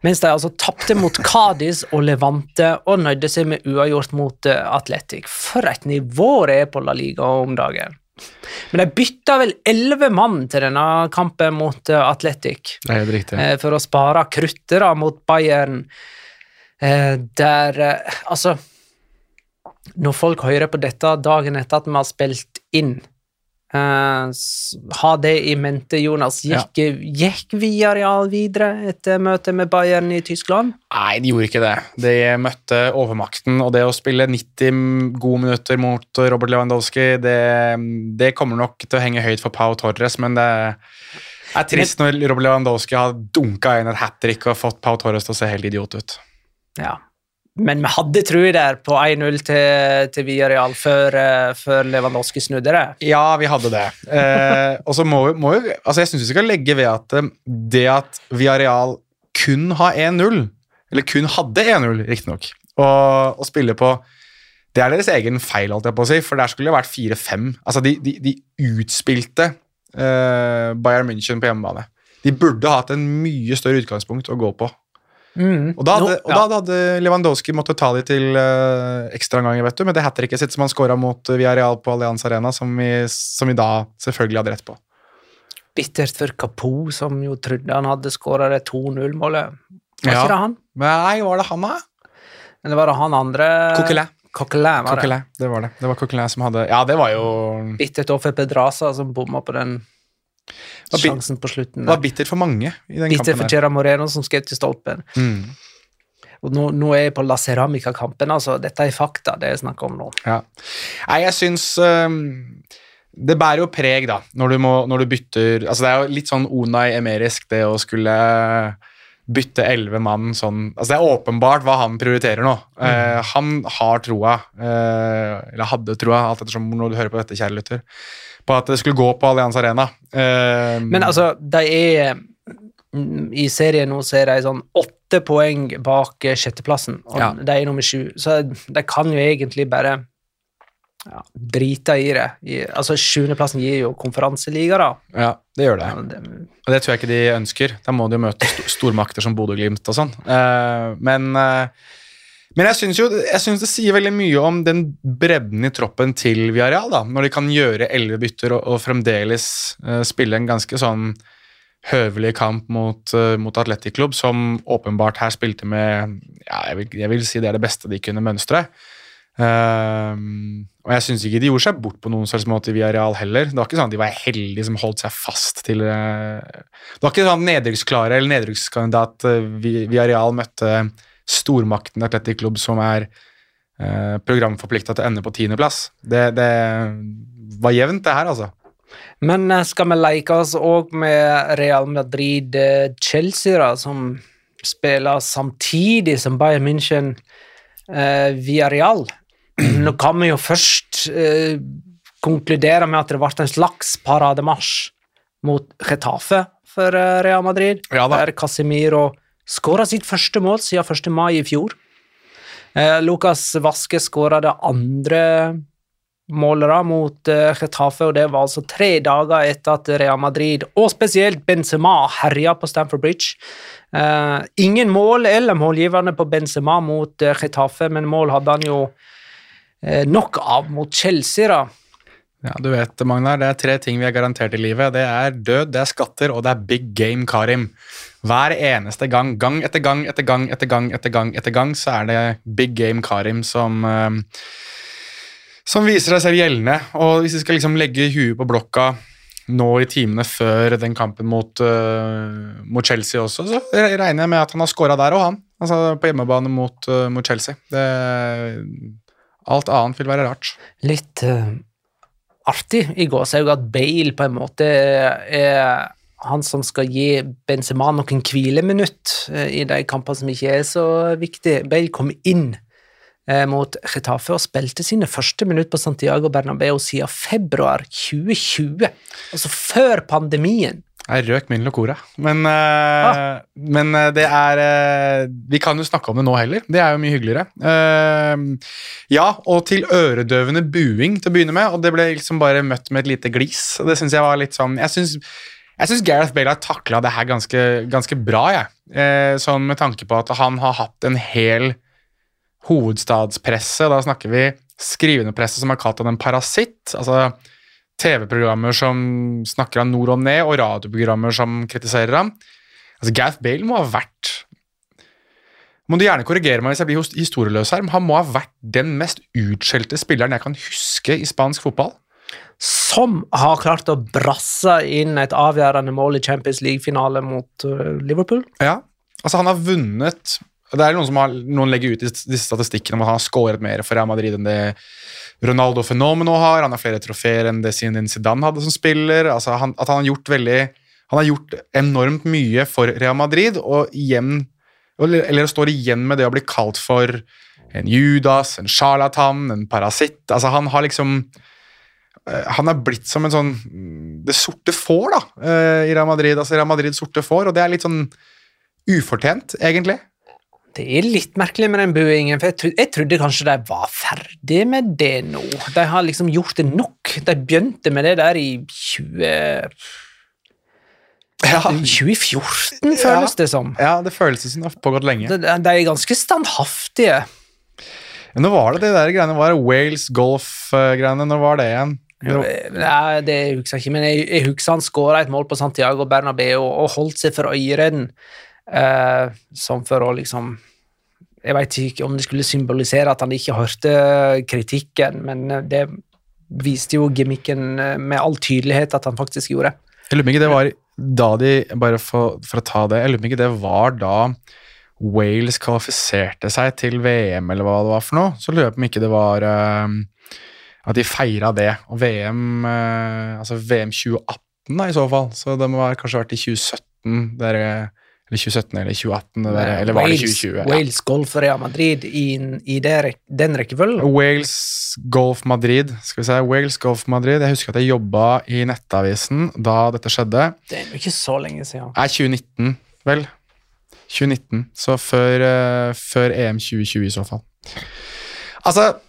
mens de altså tappte mot Cadiz og Levante og nøyde seg med uavgjort mot Atletic. For et nivå det er på La Liga om dagen. Men de bytta vel 11 mann til denne kampen mot Atletic. Det er helt riktig. For å spare kruttere mot Bayern. Altså, når folk hører på dette dagen etter at vi har spilt inn, ha det i mente, Jonas. Gikk Villarreal videre etter møtet med Bayern i Tyskland? Nei, de gjorde ikke det. De møtte overmakten, og det å spille 90 gode minutter mot Robert Lewandowski, det kommer nok til å henge høyt for Pau Torres, men det er trist når Robert Lewandowski har dunket inn et hat-trick og fått Pau Torres til å se helt idiot ut. Ja. Men vi hadde tro der på 1-0 til Villarreal før Lewandowski snudde det. Ja, vi hadde det. Og så må vi altså jeg synes vi skal legge ved at det at Villarreal kun har 1-0, eller kun hadde 1-0, riktig nok, og spille på, det er deres egen feil, alt jeg på å si, for der skulle det vært 4-5. Altså, de utspilte Bayern München på hjemmebane. De burde hatt en mye større utgangspunkt å gå på. Og da hadde Lewandowski måttet ta de til ekstra ganger, vet du, med det hat-tricket sitt som han skåret mot Villarreal på Allianz Arena, som vi da selvfølgelig hadde rett på. Bittert for Capo, som jo trodde han hadde skåret det 2-0-målet. Var ikke det han? Nei, var det han da? Eller var det han andre? Coquelin var det. Det var det. Det var Coquelin som hadde... Ja, det var jo... Bittert over Pedraza som bommet på den sjansen på slutten. Det var bittert for mange i den bittert kampen. For Gerard Moreno som skrev til stolpen. Og nå er jeg på La Ceramica-kampen, altså. Dette er fakta, det jeg snakker om nå. Ja. Nei, jeg synes det bærer jo preg da, når du bytter, altså det er jo litt sånn Unai Emerisk det å skulle bytte 11 mann sånn, altså det er åpenbart hva han prioriterer nå. Han har troa, eller hadde troa, alt ettersom når du hører på dette, kjære lytter, på at det skulle gå på Allianz Arena. Men altså, de er i serien nå så er de sånn 8 poeng bak 6. plassen, og de er nummer 7, så de kan jo egentlig bare drite i det. Altså 7. plassen gir jo konferanseliga da. Ja, det gjør det. Og det tror jeg ikke de ønsker. Da må de jo møte stormakter som Bodø Glimt og sånn. Men jeg synes det sier veldig mye om den bredden i troppen til Villarreal, da, når de kan gjøre 11 bytter og fremdeles spille en ganske sånn høvelig kamp mot Atletic Klubb, som åpenbart her spilte med, jeg vil si det er det beste de kunne mønstre. Og jeg synes ikke de gjorde seg bort på noen slags måte i Villarreal heller. Det var ikke sånn at de var heldige som holdt seg fast til... Det var ikke sånn nedrykksklare eller nedrykkskandidat Villarreal møtte stormakten Atletic Klubb som er programforpliktet til å ende på 10. plass. Det var jevnt det her, altså. Men skal vi leke oss også med Real Madrid Chelsea da, som spiller samtidig som Bayern München Villarreal? Nå kan vi jo først konkludere med at det ble en slags parademarsj mot Getafe for Real Madrid, der Casemiro skåret sitt første mål siden 1. mai i fjor. Lucas Vazquez skåret det andre målet mot Getafe, og det var altså 3 dager etter at Real Madrid, og spesielt Benzema, herjet på Stamford Bridge. Ingen mål eller målgiverne på Benzema mot Getafe, men mål hadde han jo nok av mot Chelsea da. Ja, du vet, Magnar, det 3 ting vi har garantert i livet. Det død, det skatter, og det big game Karim. Hver eneste gang, gang etter gang, etter gang, etter gang, etter gang, etter gang, så det big game Karim som viser seg selv gjeldende. Og hvis vi skal liksom legge huet på blokka nå i timene før den kampen mot Chelsea også, så regner jeg med at han har skåret der og han. Altså på hjemmebane mot Chelsea. Alt annet vil være rart. Litt artig i gåsehud at Bale på en måte han som skal gi Benzema noen hvileminutt i de kampene som ikke så viktige. Bale kom inn mot Getafe og spilte sine første minutt på Santiago Bernabeu siden februar 2020, altså før pandemien. Jeg røk min locora, men det vi kan jo snakke om det nå heller, det jo mye hyggeligere. Ja, og til øredøvende buing til å begynne med, og det ble liksom bare møtt med et lite glis, og det synes jeg var litt sånn, jeg synes Gareth Bale har taklet det her ganske bra, sånn med tanke på at han har hatt en hel hovedstadspresse, da snakker vi skrivende presse som har kalt han en parasitt, altså TV-programmer som snakker han nord og ned, og radioprogrammer som kritiserer ham. Altså Gareth Bale må ha vært, må du gjerne korrigere meg hvis jeg blir historieløs her, men han må ha vært den mest utskjelte spilleren jeg kan huske i spansk fotball. Som har klart å brasse inn et avgjørende mål i Champions League-finale mot Liverpool. Ja, altså han har vunnet. Det noen legger ut disse statistikkene om at han har skåret mer for Real Madrid enn det Ronaldo Fenomeno har. Han har flere trofeer enn det Zidane hadde som spiller. Altså han har gjort han har gjort enormt mye for Real Madrid, eller står igjen med det å bli kalt for en Judas, en charlatan, en parasitt. Altså han har han blitt som en sånn det sorte får da, i Real Madrid. Altså Real Madrid sorte får, og det litt sånn ufortjent, egentlig. Det litt merkelig med den buingen, for jeg trodde kanskje de var ferdig med det nå. De har liksom gjort det nok. De begynte med det der i 2014, føles det som. Ja, det føles som det har pågått lenge. De ganske standhaftige. Ja, nå var det der greiene, var Wales Golf-greiene, når var det igjen? Nei, det husker jeg ikke, men jeg husker han skåret et mål på Santiago Bernabeu og holdt seg for øyeren, som for å liksom jeg vet ikke om det skulle symbolisere at han ikke hørte kritikken, men det viste jo gimmicken med all tydelighet at han faktisk gjorde. Jeg lurer meg ikke det var da bare for å ta det, jeg lurer meg ikke det var da Wales kvalifiserte seg til VM eller hva det var for noe, så lurer jeg på om ikke det var at de feiret det, og altså VM 2018 da, i så fall, så det må kanskje vært i 2017 eller 2017 eller 2018, eller var det 2020? Wales Golf Real Madrid i den rekkefølgen? Wales Golf Madrid, skal vi se, Wales Golf Madrid, jeg husker at jeg jobbet i nettavisen da dette skjedde. Det jo ikke så lenge siden. 2019, vel? 2019, så før EM 2020 i så fall. Altså,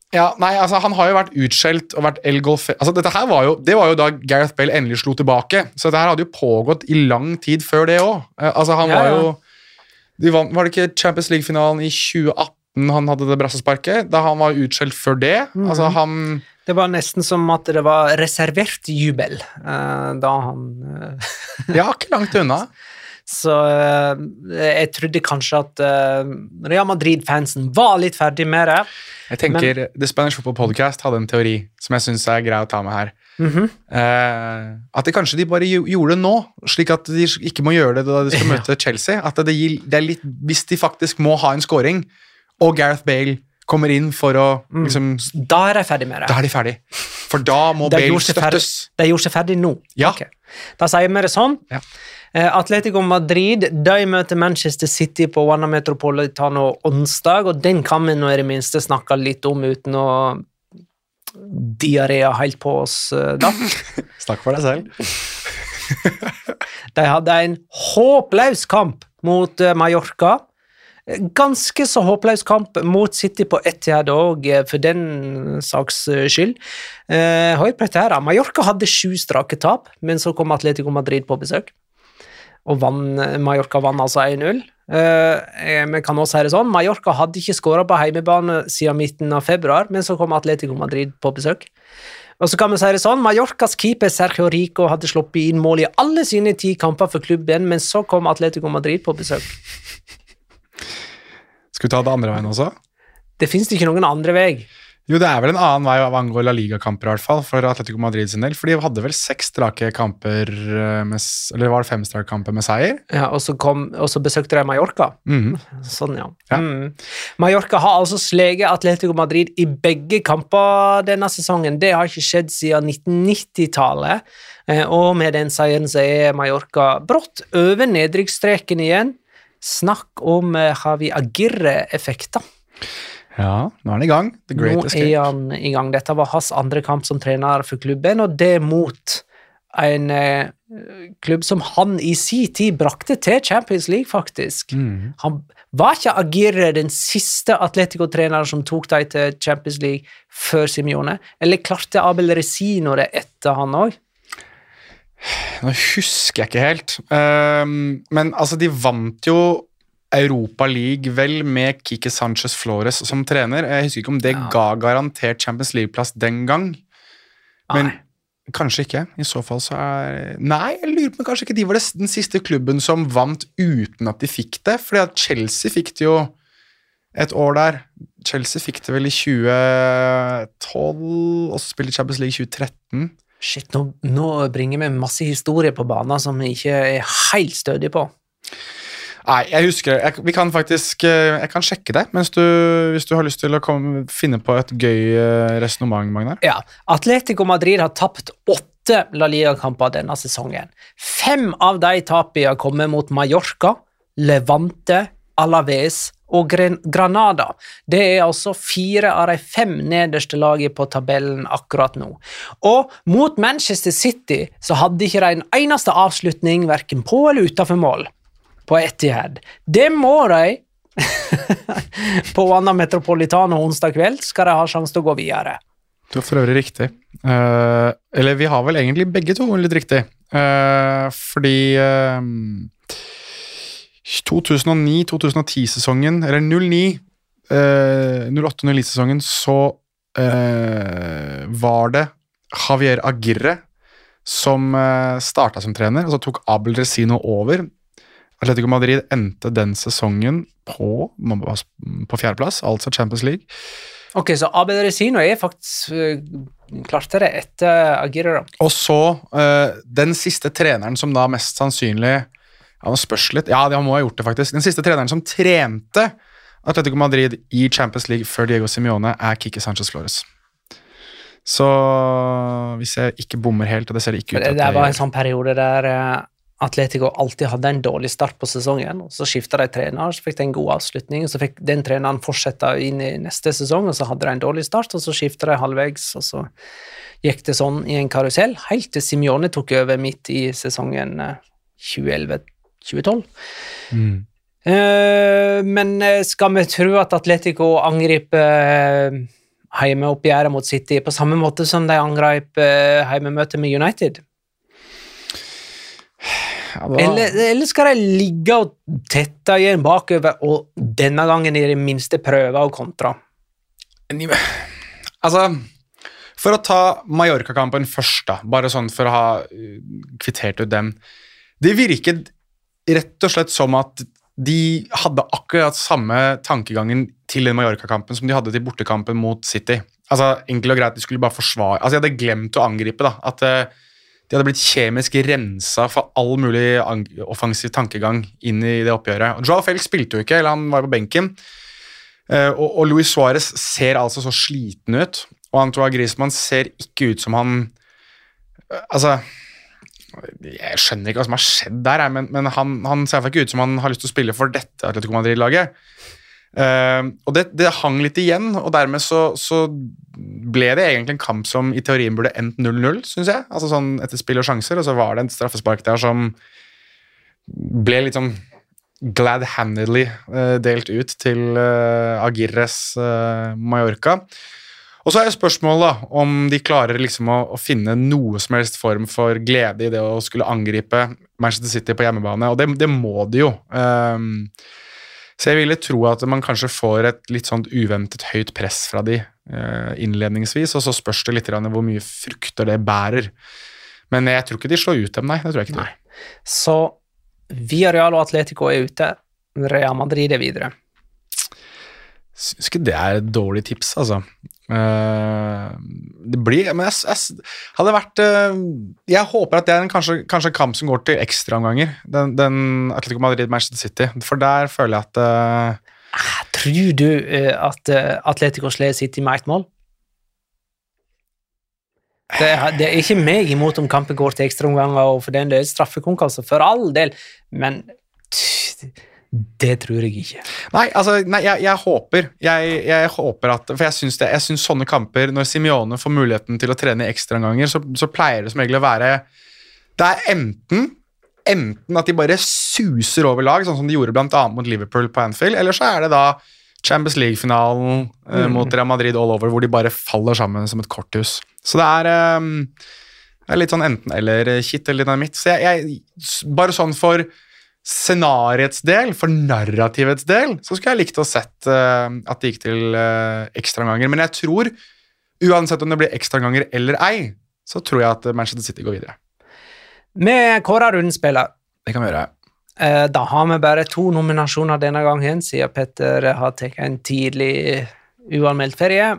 ja, nei, altså han har jo vært utskjelt og vært el-golf, altså det var jo da Gareth Bale endelig slo tilbake, så dette her hadde jo pågått i lang tid før det også. Altså han var jo var det ikke Champions League-finalen i 2018 han hadde det brassesparket, da han var utskjelt før det, altså det var nesten som at det var reservert jubel da han ja, ikke langt unna. Så jeg trodde kanskje at Real Madrid-fansen var litt ferdig med det. Jeg tenker, The Spanish Football Podcast hadde en teori som jeg synes grei å ta med her. At kanskje de bare gjorde det nå, slik at de ikke må gjøre det da de skal møte Chelsea. At det litt, hvis de faktisk må ha en scoring, og Gareth Bale kommer inn for å liksom, da de ferdig med det. Da de ferdig. For da må Bale støttes. De gjorde seg ferdig nå. Ja. Okay. Da sier vi det sånn. Ja. Atletico Madrid, de møter Manchester City på Wanda Metropolitano onsdag, og den kan vi nå i det minste snakke litt om uten å diaré helt på oss da. Snakk for deg selv. De hadde en håpløs kamp mot Mallorca. Ganske så håpløs kamp mot City på Etihad også, for den saks skyld. Hør på dette her. Mallorca hadde 7 strake tap, men så kom Atletico Madrid på besøk. Og Mallorca vann altså 1-0. Vi kan også si det sånn, Mallorca hadde ikke skåret på heimebane siden midten av februar, men så kom Atletico Madrid på besøk. Og så kan vi si det sånn, Mallorcas keeper Sergio Rico hadde sluppet inn mål i alle sine 10 kamper for klubben, men så kom Atletico Madrid på besøk. Skal vi ta det andre veien også? Det finnes ikke noen andre vei. Jo, det vel en annen vei av angå La Liga-kamper i hvert fall, for Atletico Madrid sin del, for de hadde vel 6 strake kamper, eller var det 5 strake kamper med seier? Ja, og så besøkte de Mallorca. Sånn, ja. Mallorca har altså sleget Atletico Madrid i begge kamper denne sesongen. Det har ikke skjedd siden 1990-tallet, og med den seieren så Mallorca brått over nedrykksstreken igjen. Snakk om Javi Aguirre-effekter. Ja, nå han i gang. The Great Escape. Nå han i gang. Dette var hans andre kamp som trener for klubben, og det mot en klubb som han i sin tid brakte til Champions League, faktisk. Han var ikke Aguirre den siste Atletico-treneren som tok dem til Champions League før Simeone, eller klarte Abel Resino det etter han også? Nå husker jeg ikke helt, men altså de vant jo Europa League vel med Quique Sanchez Flores som trener. Jeg husker ikke om det ga garantert Champions League-plass den gang, men kanskje ikke. I så fall så Nei, jeg lurer på kanskje ikke de var den siste klubben som vant uten at de fikk det, fordi at Chelsea fikk det jo et år der. Chelsea fikk det vel i 2012, og så spilte Champions League i 2013. Shit, nå bringer vi masse historie på banen som vi ikke helt stødige på. Nei, jeg husker vi kan faktisk, jeg kan sjekke det, hvis du har lyst til å finne på et gøy resonemang, Magnar. Ja, Atletico Madrid har tapt 8 La Liga-kamper denne sesongen. 5 av de tapene har kommet mot Mallorca, Levante, Alaves og Granada. Det altså 4 av de 5 nederste lagene på tabellen akkurat nå. Og mot Manchester City så hadde ikke de en eneste avslutning, hverken på eller utenfor mål. På Etihad. Det må de på Wanda Metropolitano onsdag kveld skal de ha sjanse til å gå videre. Du har for øvrig riktig. Eller vi har vel egentlig begge to litt riktig. Fordi 2009-2010-sesongen, eller 08-09-sesongen, så var det Javier Aguirre som startet som trener, og så tok Abel Resino over. Atletico Madrid endte den sesongen på 4. plass, altså Champions League. Ok, så Abel Resino faktisk klarte det etter Aguirre da. Og så den siste treneren som da mest sannsynlig, han spørs litt, ja, det må ha gjort det faktisk, den siste treneren som trente Atletico Madrid i Champions League før Diego Simeone Quique Sanchez Flores. Så hvis jeg ikke bommer helt, og det ser ikke ut at det var en sånn periode der Atletico alltid hadde en dårlig start på sesongen, og så skiftet de trener, så fikk de en god avslutning, og så fikk den treneren fortsette inn i neste sesong, og så hadde de en dårlig start, og så skiftet de halvvegs, og så gikk det sånn i en karusell, helt til Simeone tok over midt i sesongen 2011-2012. Men skal vi tro at Atletico angriper heimeoppgjøret mot City på samme måte som de angrep heimemøtet med United? Eller skal de ligge og tette igjen bakover, og denne gangen i det minste prøve å kontra? Altså, for å ta Mallorca-kampen først da, bare sånn for å ha kvittert ut den. Det virket rett og slett som at de hadde akkurat samme tankegangen til den Mallorca-kampen som de hadde til bortekampen mot City. Altså, enkelt og greit, de skulle bare forsvare. Altså, jeg hadde glemt å angripe da, at de hadde blitt kjemisk renset for all mulig offensiv tankegang inn i det oppgjøret. Og Joao Felix spilte jo ikke, eller han var på benken. Og Luis Suárez ser altså så sliten ut, og Antoine Griezmann ser ikke ut som han... Altså, jeg skjønner ikke hva som har skjedd der, men han ser ikke ut som han har lyst til å spille for dette Atletico Madrid-laget. Og det hang litt igjen, og dermed så ble det egentlig en kamp som i teorien burde endt 0-0, synes jeg. Altså sånn etter spill og sjanser, og så var det en straffespark der som ble litt sånn glad-handedly delt ut til Aguirres Mallorca. Og så er spørsmålet da, om de klarer liksom å finne noe som helst form for glede i det å skulle angripe Manchester City på hjemmebane, og det må de jo. Så jeg ville tro at man kanskje får et litt sånn uventet høyt press fra de innledningsvis, og så spørs det litt hvor mye frukter det bærer. Men jeg tror ikke de slår ut dem, nei, det tror jeg ikke. Nei. Så Villarreal og Atletico er ute, Real Madrid er videre. Synes ikke det er et dårlig tips, altså. Det blir, men jeg hadde vært jeg håper at det er kanskje en kamp som går til ekstraomganger, den Atletico Madrid-Manchester City, for der føler jeg at tror du at Atletico slår City med ett mål? Det er ikke meg imot om kampen går til ekstraomganger, og for den del straffekonkurranse, for all del, men det tror jeg ikke. Nei, jeg håper at, for jeg synes sånne kamper, når Simeone får muligheten til å trene i ekstraomganger, så pleier det som egentlig å være, det er enten at de bare suser over lag, sånn som de gjorde blant annet mot Liverpool på Anfield, eller så er det da Champions League-finalen mot Real Madrid all over, hvor de bare faller sammen som et korthus. Så det er litt sånn enten eller kitt eller dynamitt. Så jeg bare sånn for scenariets del, for narrativets del, så skulle jeg likt å sett at det gikk til ekstraomganger. Men jeg tror, uansett om det blir ekstraomganger eller ei, så tror jeg at Manchester City går videre. Med kåret rundspiller. Det kan vi gjøre. Da har vi bare 2 nominasjoner denne gangen, siden Petter har tatt en tidlig uanmeldt ferie.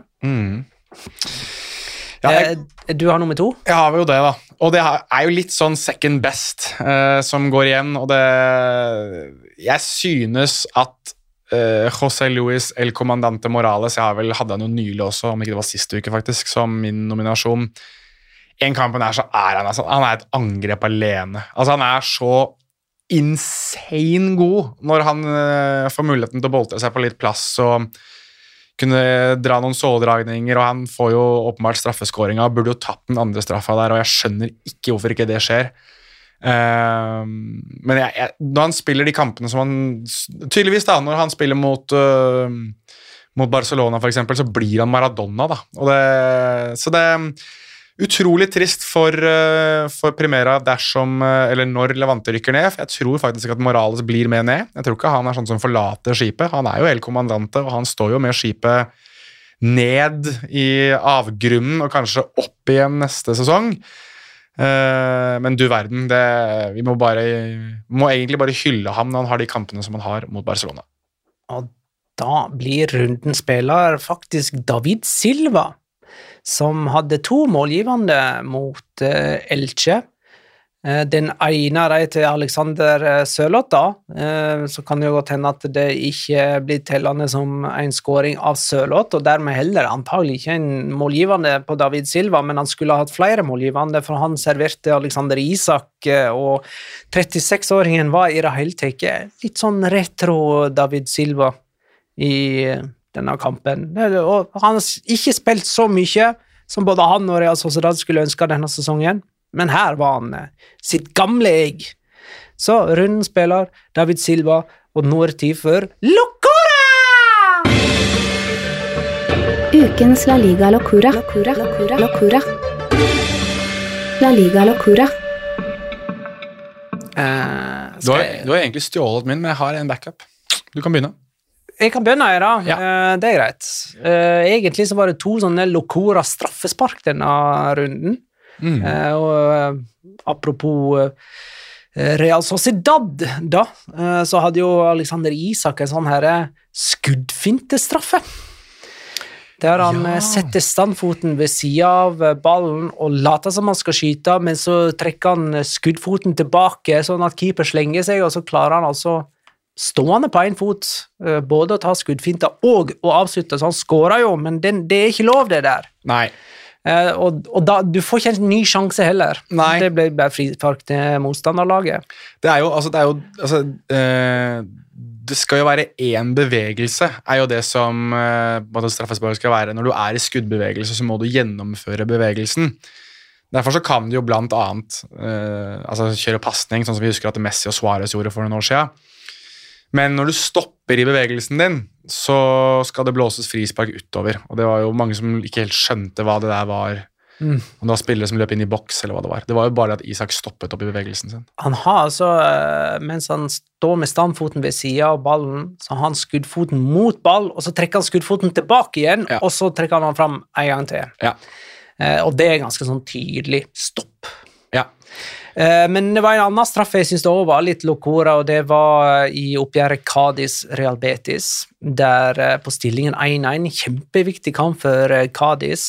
Ja, du har nummer 2? Jeg har jo det da, og det er jo litt sånn second best som går igjen, og jeg synes at José Luis El Comandante Morales, hadde han jo nylig også, om ikke det var siste uke faktisk, som min nominasjon. En kampen så han er et angrep alene. Altså han er så insane god når han får muligheten til å boltre seg på litt plass og kunne dra noen såledragninger, og han får jo åpenbart straffeskåringa, burde jo tatt den andre straffa der, og jeg skjønner ikke hvorfor ikke det skjer. Men når han spiller de kampene som han, tydeligvis da, når han spiller mot Barcelona for eksempel, så blir han Maradona da, så det utrolig trist for Primera eller når Levante rykker ned, for jeg tror faktisk at Morales blir med ned. Jeg tror ikke han er sånn som forlater skipet. Han er jo El Comandante, og han står jo med skipet ned i avgrunnen, og kanskje opp igjen neste sesong. Men du verden, vi må egentlig bare hylle ham når han har de kampene som han har mot Barcelona. Og da blir rundens spiller faktisk David Silva, som hadde 2 målgivende mot Elche. Den ene til Alexander Sørloth da, så kan det jo godt hende at det ikke blir tellende som en scoring av Sørloth, og dermed heller antagelig ikke en målgivende på David Silva, men han skulle ha hatt flere målgivende, for han serverte Alexander Isak, og 36-åringen var i det hele tatt litt sånn retro David Silva i denne kampen, og han har ikke spilt så mye som både han og Real Sociedad skulle ønske denne sesongen, men her var han sitt gamle egg. Så runden spiller David Silva, og nå er det tid for Locura! Ukens La Liga Locura. La Liga Locura. Du har egentlig stjålet min, men jeg har en backup. Du kan begynne. Jeg kan begynne her da, ja. Det er greit. Egentlig så var det 2 sånne Locura straffespark denne runden. Og apropos Real Sociedad da, så hadde jo Alexander Isak en sånn her skuddfintestraffe. Der han setter standfoten ved siden av ballen og later som han skal skyte, men så trekker han skuddfoten tilbake sånn at keeper slenger seg, og så klarer han altså stående på en fot, både å ta skuddfinter og å avslutte, så han skårer jo, men det er ikke lov det der. Nei. Og da, du får ikke en ny sjanse heller. Nei. Det ble bare frispark til motstanderlaget. det skal jo være en bevegelse, jo det som straffespark skal være. Når du I skuddbevegelse, så må du gjennomføre bevegelsen. Derfor så kan du jo blant annet kjøre passning, sånn som vi husker at Messi og Suarez gjorde for noen år siden. Men når du stopper I bevegelsen din, så skal det blåses frispark utover. Og det var jo mange som ikke helt skjønte hva det der var. Om det var spillere som løp inn I boks, eller hva det var. Det var jo bare at Isak stoppet opp I bevegelsen sin. Han har altså, mens han står med standfoten ved siden av ballen, så har han skuddfoten mot ball, og så trekker han skuddfoten tilbake igjen, og så trekker han fram en gang til. Ja. Og det ganske sånn tydelig stopp. Ja. Men det var en annen straffe jeg synes det også var litt lokora, og det var I oppgjøret Cadiz-Real Betis, der på stillingen 1-1, kjempeviktig kamp for Cadiz,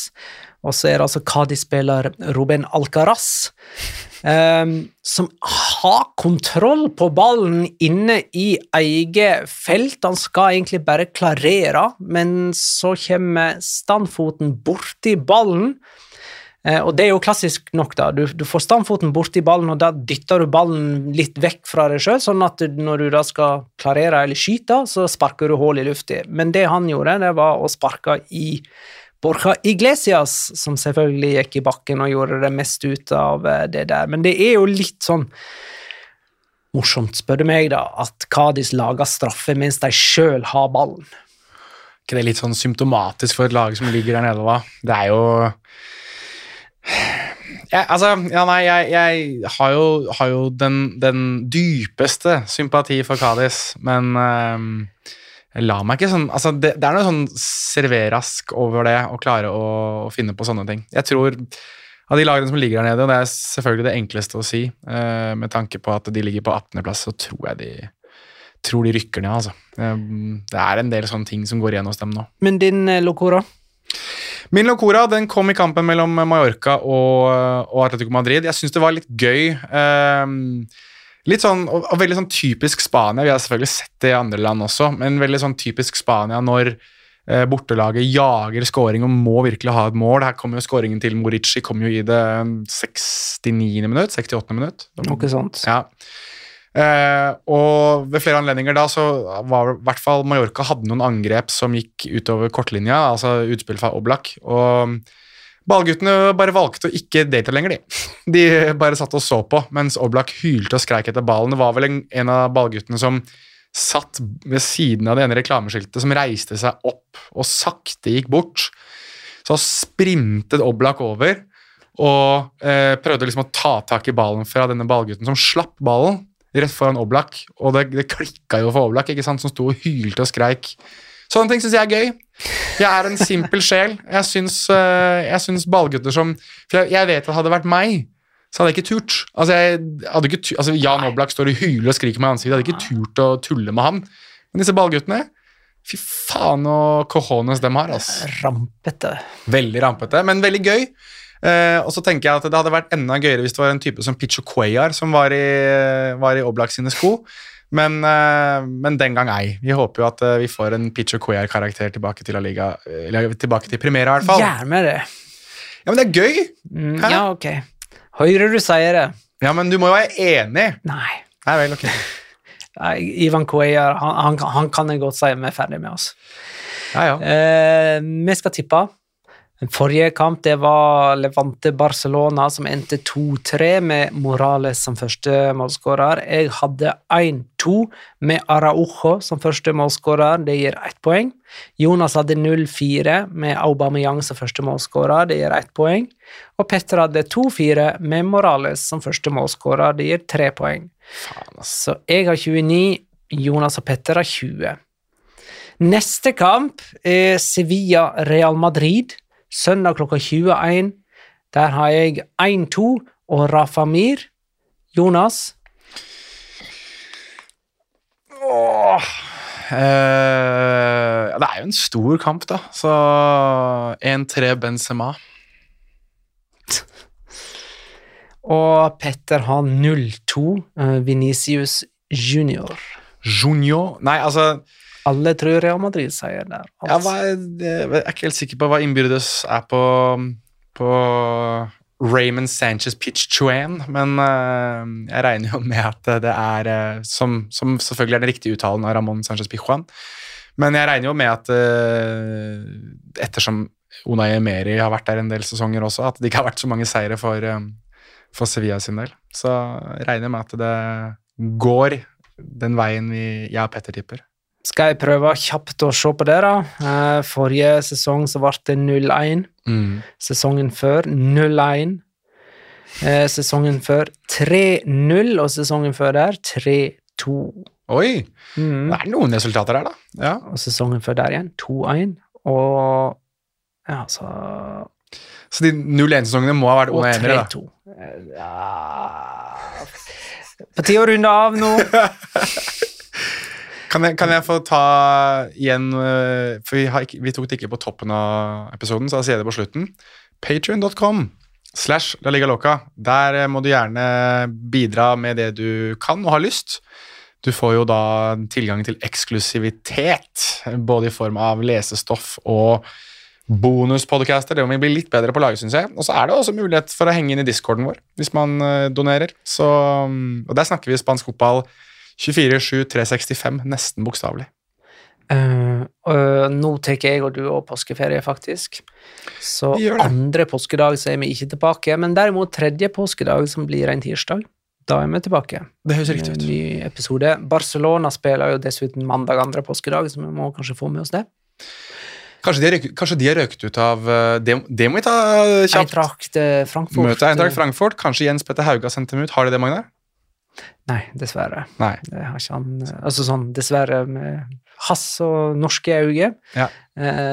og så det altså Cadiz-spiller Ruben Alcaraz, som har kontroll på ballen inne I eget felt. Han skal egentlig bare klarere, men så kommer standfoten bort I ballen, og det jo klassisk nok da, du får standfoten bort I ballen, og da dytter du ballen litt vekk fra deg selv, sånn at når du da skal klarere eller skyte, så sparker du hål I luften. Men det han gjorde, det var å sparke I Borja Iglesias, som selvfølgelig gikk I bakken og gjorde det mest ut av det der. Men det jo litt sånn morsomt, spør du meg da, at Cadiz lager straffe mens de selv har ballen. Ikke det litt sånn symptomatisk for et lag som ligger der nede, da? Det jo... Jeg har jo den dypeste sympati for Cadiz, men jeg la meg ikke sånn, det noe sånn serverask over det, å klare å finne på sånne ting. Jeg tror, av de lagene som ligger der nede, og det selvfølgelig det enkleste å si, med tanke på at de ligger på 18. plass, så tror jeg de rykker ned, altså. Det en del sånne ting som går igjen hos dem nå. Men din Locora? Min Locora, den kom I kampen mellom Mallorca og Atletico Madrid. Jeg synes det var litt gøy. Litt sånn, og veldig sånn typisk Spania. Vi har selvfølgelig sett det I andre land også, men veldig sånn typisk Spania når bortelaget jager scoring og må virkelig ha et mål. Her kommer jo scoringen til Morici, kom jo I det 69. minutt, 68. minutt. Noe sånt. Ja. Og ved flere anledninger da så var I hvert fall Mallorca hadde noen angrep som gikk utover kortlinja, altså utspill fra Oblak, og ballguttene bare valgte å ikke delta lenger de bare satt og så på mens Oblak hylte og skreik etter ballen. Det var vel en av ballguttene som satt ved siden av det ene reklameskiltet som reiste seg opp og sakte gikk bort, så sprintet Oblak over og prøvde liksom å ta tak I ballen fra denne ballgutten som slapp ballen rett foran Oblak, og det klikket jo for Oblak, ikke sant, som stod og hylte og skreik. Sånne ting synes jeg gøy. Jeg en simpel sjel. Jeg synes ballgutter som... For jeg vet at hadde det vært meg, så hadde jeg ikke turt. Jan Oblak står og hyler og skriker med ansiktet, jeg hadde ikke turt å tulle med han. Men disse ballguttene, fy faen og cojones dem har, altså. Rampete. Veldig rampete, men veldig gøy. Og så tenker jeg at det hadde vært enda gøyere hvis det var en type som Picho Cuellar som var I Oblak sine sko, men den gang ei. Vi håper jo at vi får en Picho Cuellar-karakter tilbake til La Liga, eller tilbake til Primera I hvert fall. Gjerne det. Ja, men det gøy. Ja, ok. Høyre du sier det. Ja, men du må jo være enig. Nei. Nei vel, ok. Ivan Cuellar, han kan jeg godt si vi ferdig med oss. Ja. Vi skal tippe. Den forrige kamp det var Levante-Barcelona som endte 2-3 med Morales som første målskårer. Jeg hadde 1-2 med Araujo som første målskårer, det gir 1 poeng. Jonas hadde 0-4 med Aubameyang som første målskårer, det gir 1 poeng. Og Petter hadde 2-4 med Morales som første målskårer, det gir 3 poeng. Så jeg har 29, Jonas og Petter har 20. Neste kamp Sevilla-Real Madrid. Søndag klokka 21, der har jeg 1-2 og Rafa Mir. Jonas? Det jo en stor kamp da, så 1-3 Benzema. Og Petter har 0-2 Vinicius Junior. Junior? Nei, altså... Alle tror Real Madrid sier der. Altså. Jeg ikke helt sikker på hva innbyrdes på Raymond Sanchez Pizjuan, men jeg regner jo med at det som selvfølgelig den riktige uttalen av Ramon Sanchez Pizjuan, men jeg regner jo med at ettersom Unai Emery har vært der en del sesonger også, at det ikke har vært så mange seire for Sevilla sin del, så jeg regner med at det går den veien jeg og Petter tipper. Skal jeg prøve kjapt å se på det da? Forrige sesong så ble det 0-1. Sesongen før 0-1. Sesongen før 3-0, og sesongen før der 3-2. Oi, det noen resultater her da. Ja. Og sesongen før der igjen 2-1. Og ja, så de 0-1-sesongene må ha vært Unai Emery da? Og 3-2. Ja. På 10 år runde av nå. Kan jeg få ta igjen, for vi tok det ikke på toppen av episoden, så jeg sier det på slutten. Patreon.com/LaLigaLoca. Der må du gjerne bidra med det du kan og har lyst. Du får jo da tilgang til eksklusivitet, både i form av lesestoff og bonuspodcaster. Det må vi bli litt bedre på å lage, synes jeg. Og så det også mulighet for å henge inn i Discorden vår, hvis man donerer. Og der snakker vi spansk fotball 24/7/365, nesten bokstavlig. Nå tenker jeg og du og påskeferie faktisk. Så andre påskedag så vi ikke tilbake, men derimot tredje påskedag som blir en tirsdag, da vi tilbake. Det høres riktig ut. Ny episode. Barcelona spiller jo dessuten mandag andre påskedag, så vi må kanskje få med oss det. Kanskje de har røkt ut av det må vi ta kjapt. Eintracht Frankfurt. Møte Eintracht Frankfurt. Kanskje Jens Petter Hauga sendte dem ut. Har de det, Magnar? Nei, dessverre. Nei. Det har ikke han, altså sånn, dessverre med hass og norske øyne. Ja.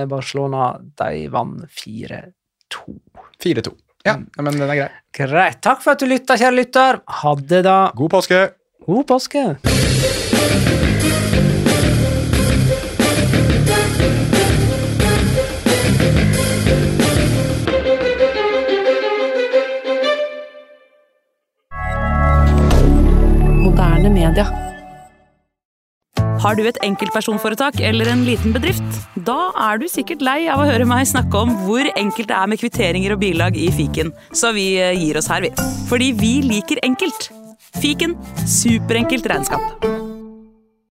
Barcelona, de vant 4-2. 4-2. Ja, men den grei. Greit. Takk for at du lyttet, kjære lytter. Ha det da. God påske. God påske. Moderne media. Har du et enkeltpersonforetak eller en liten bedrift? Da du sikkert lei av å høre meg snakke om hvor enkelt det med kvitteringer og bilag i fiken. Så vi gir oss her, vi. Fordi vi liker enkelt. Fiken, superenkelt regnskap.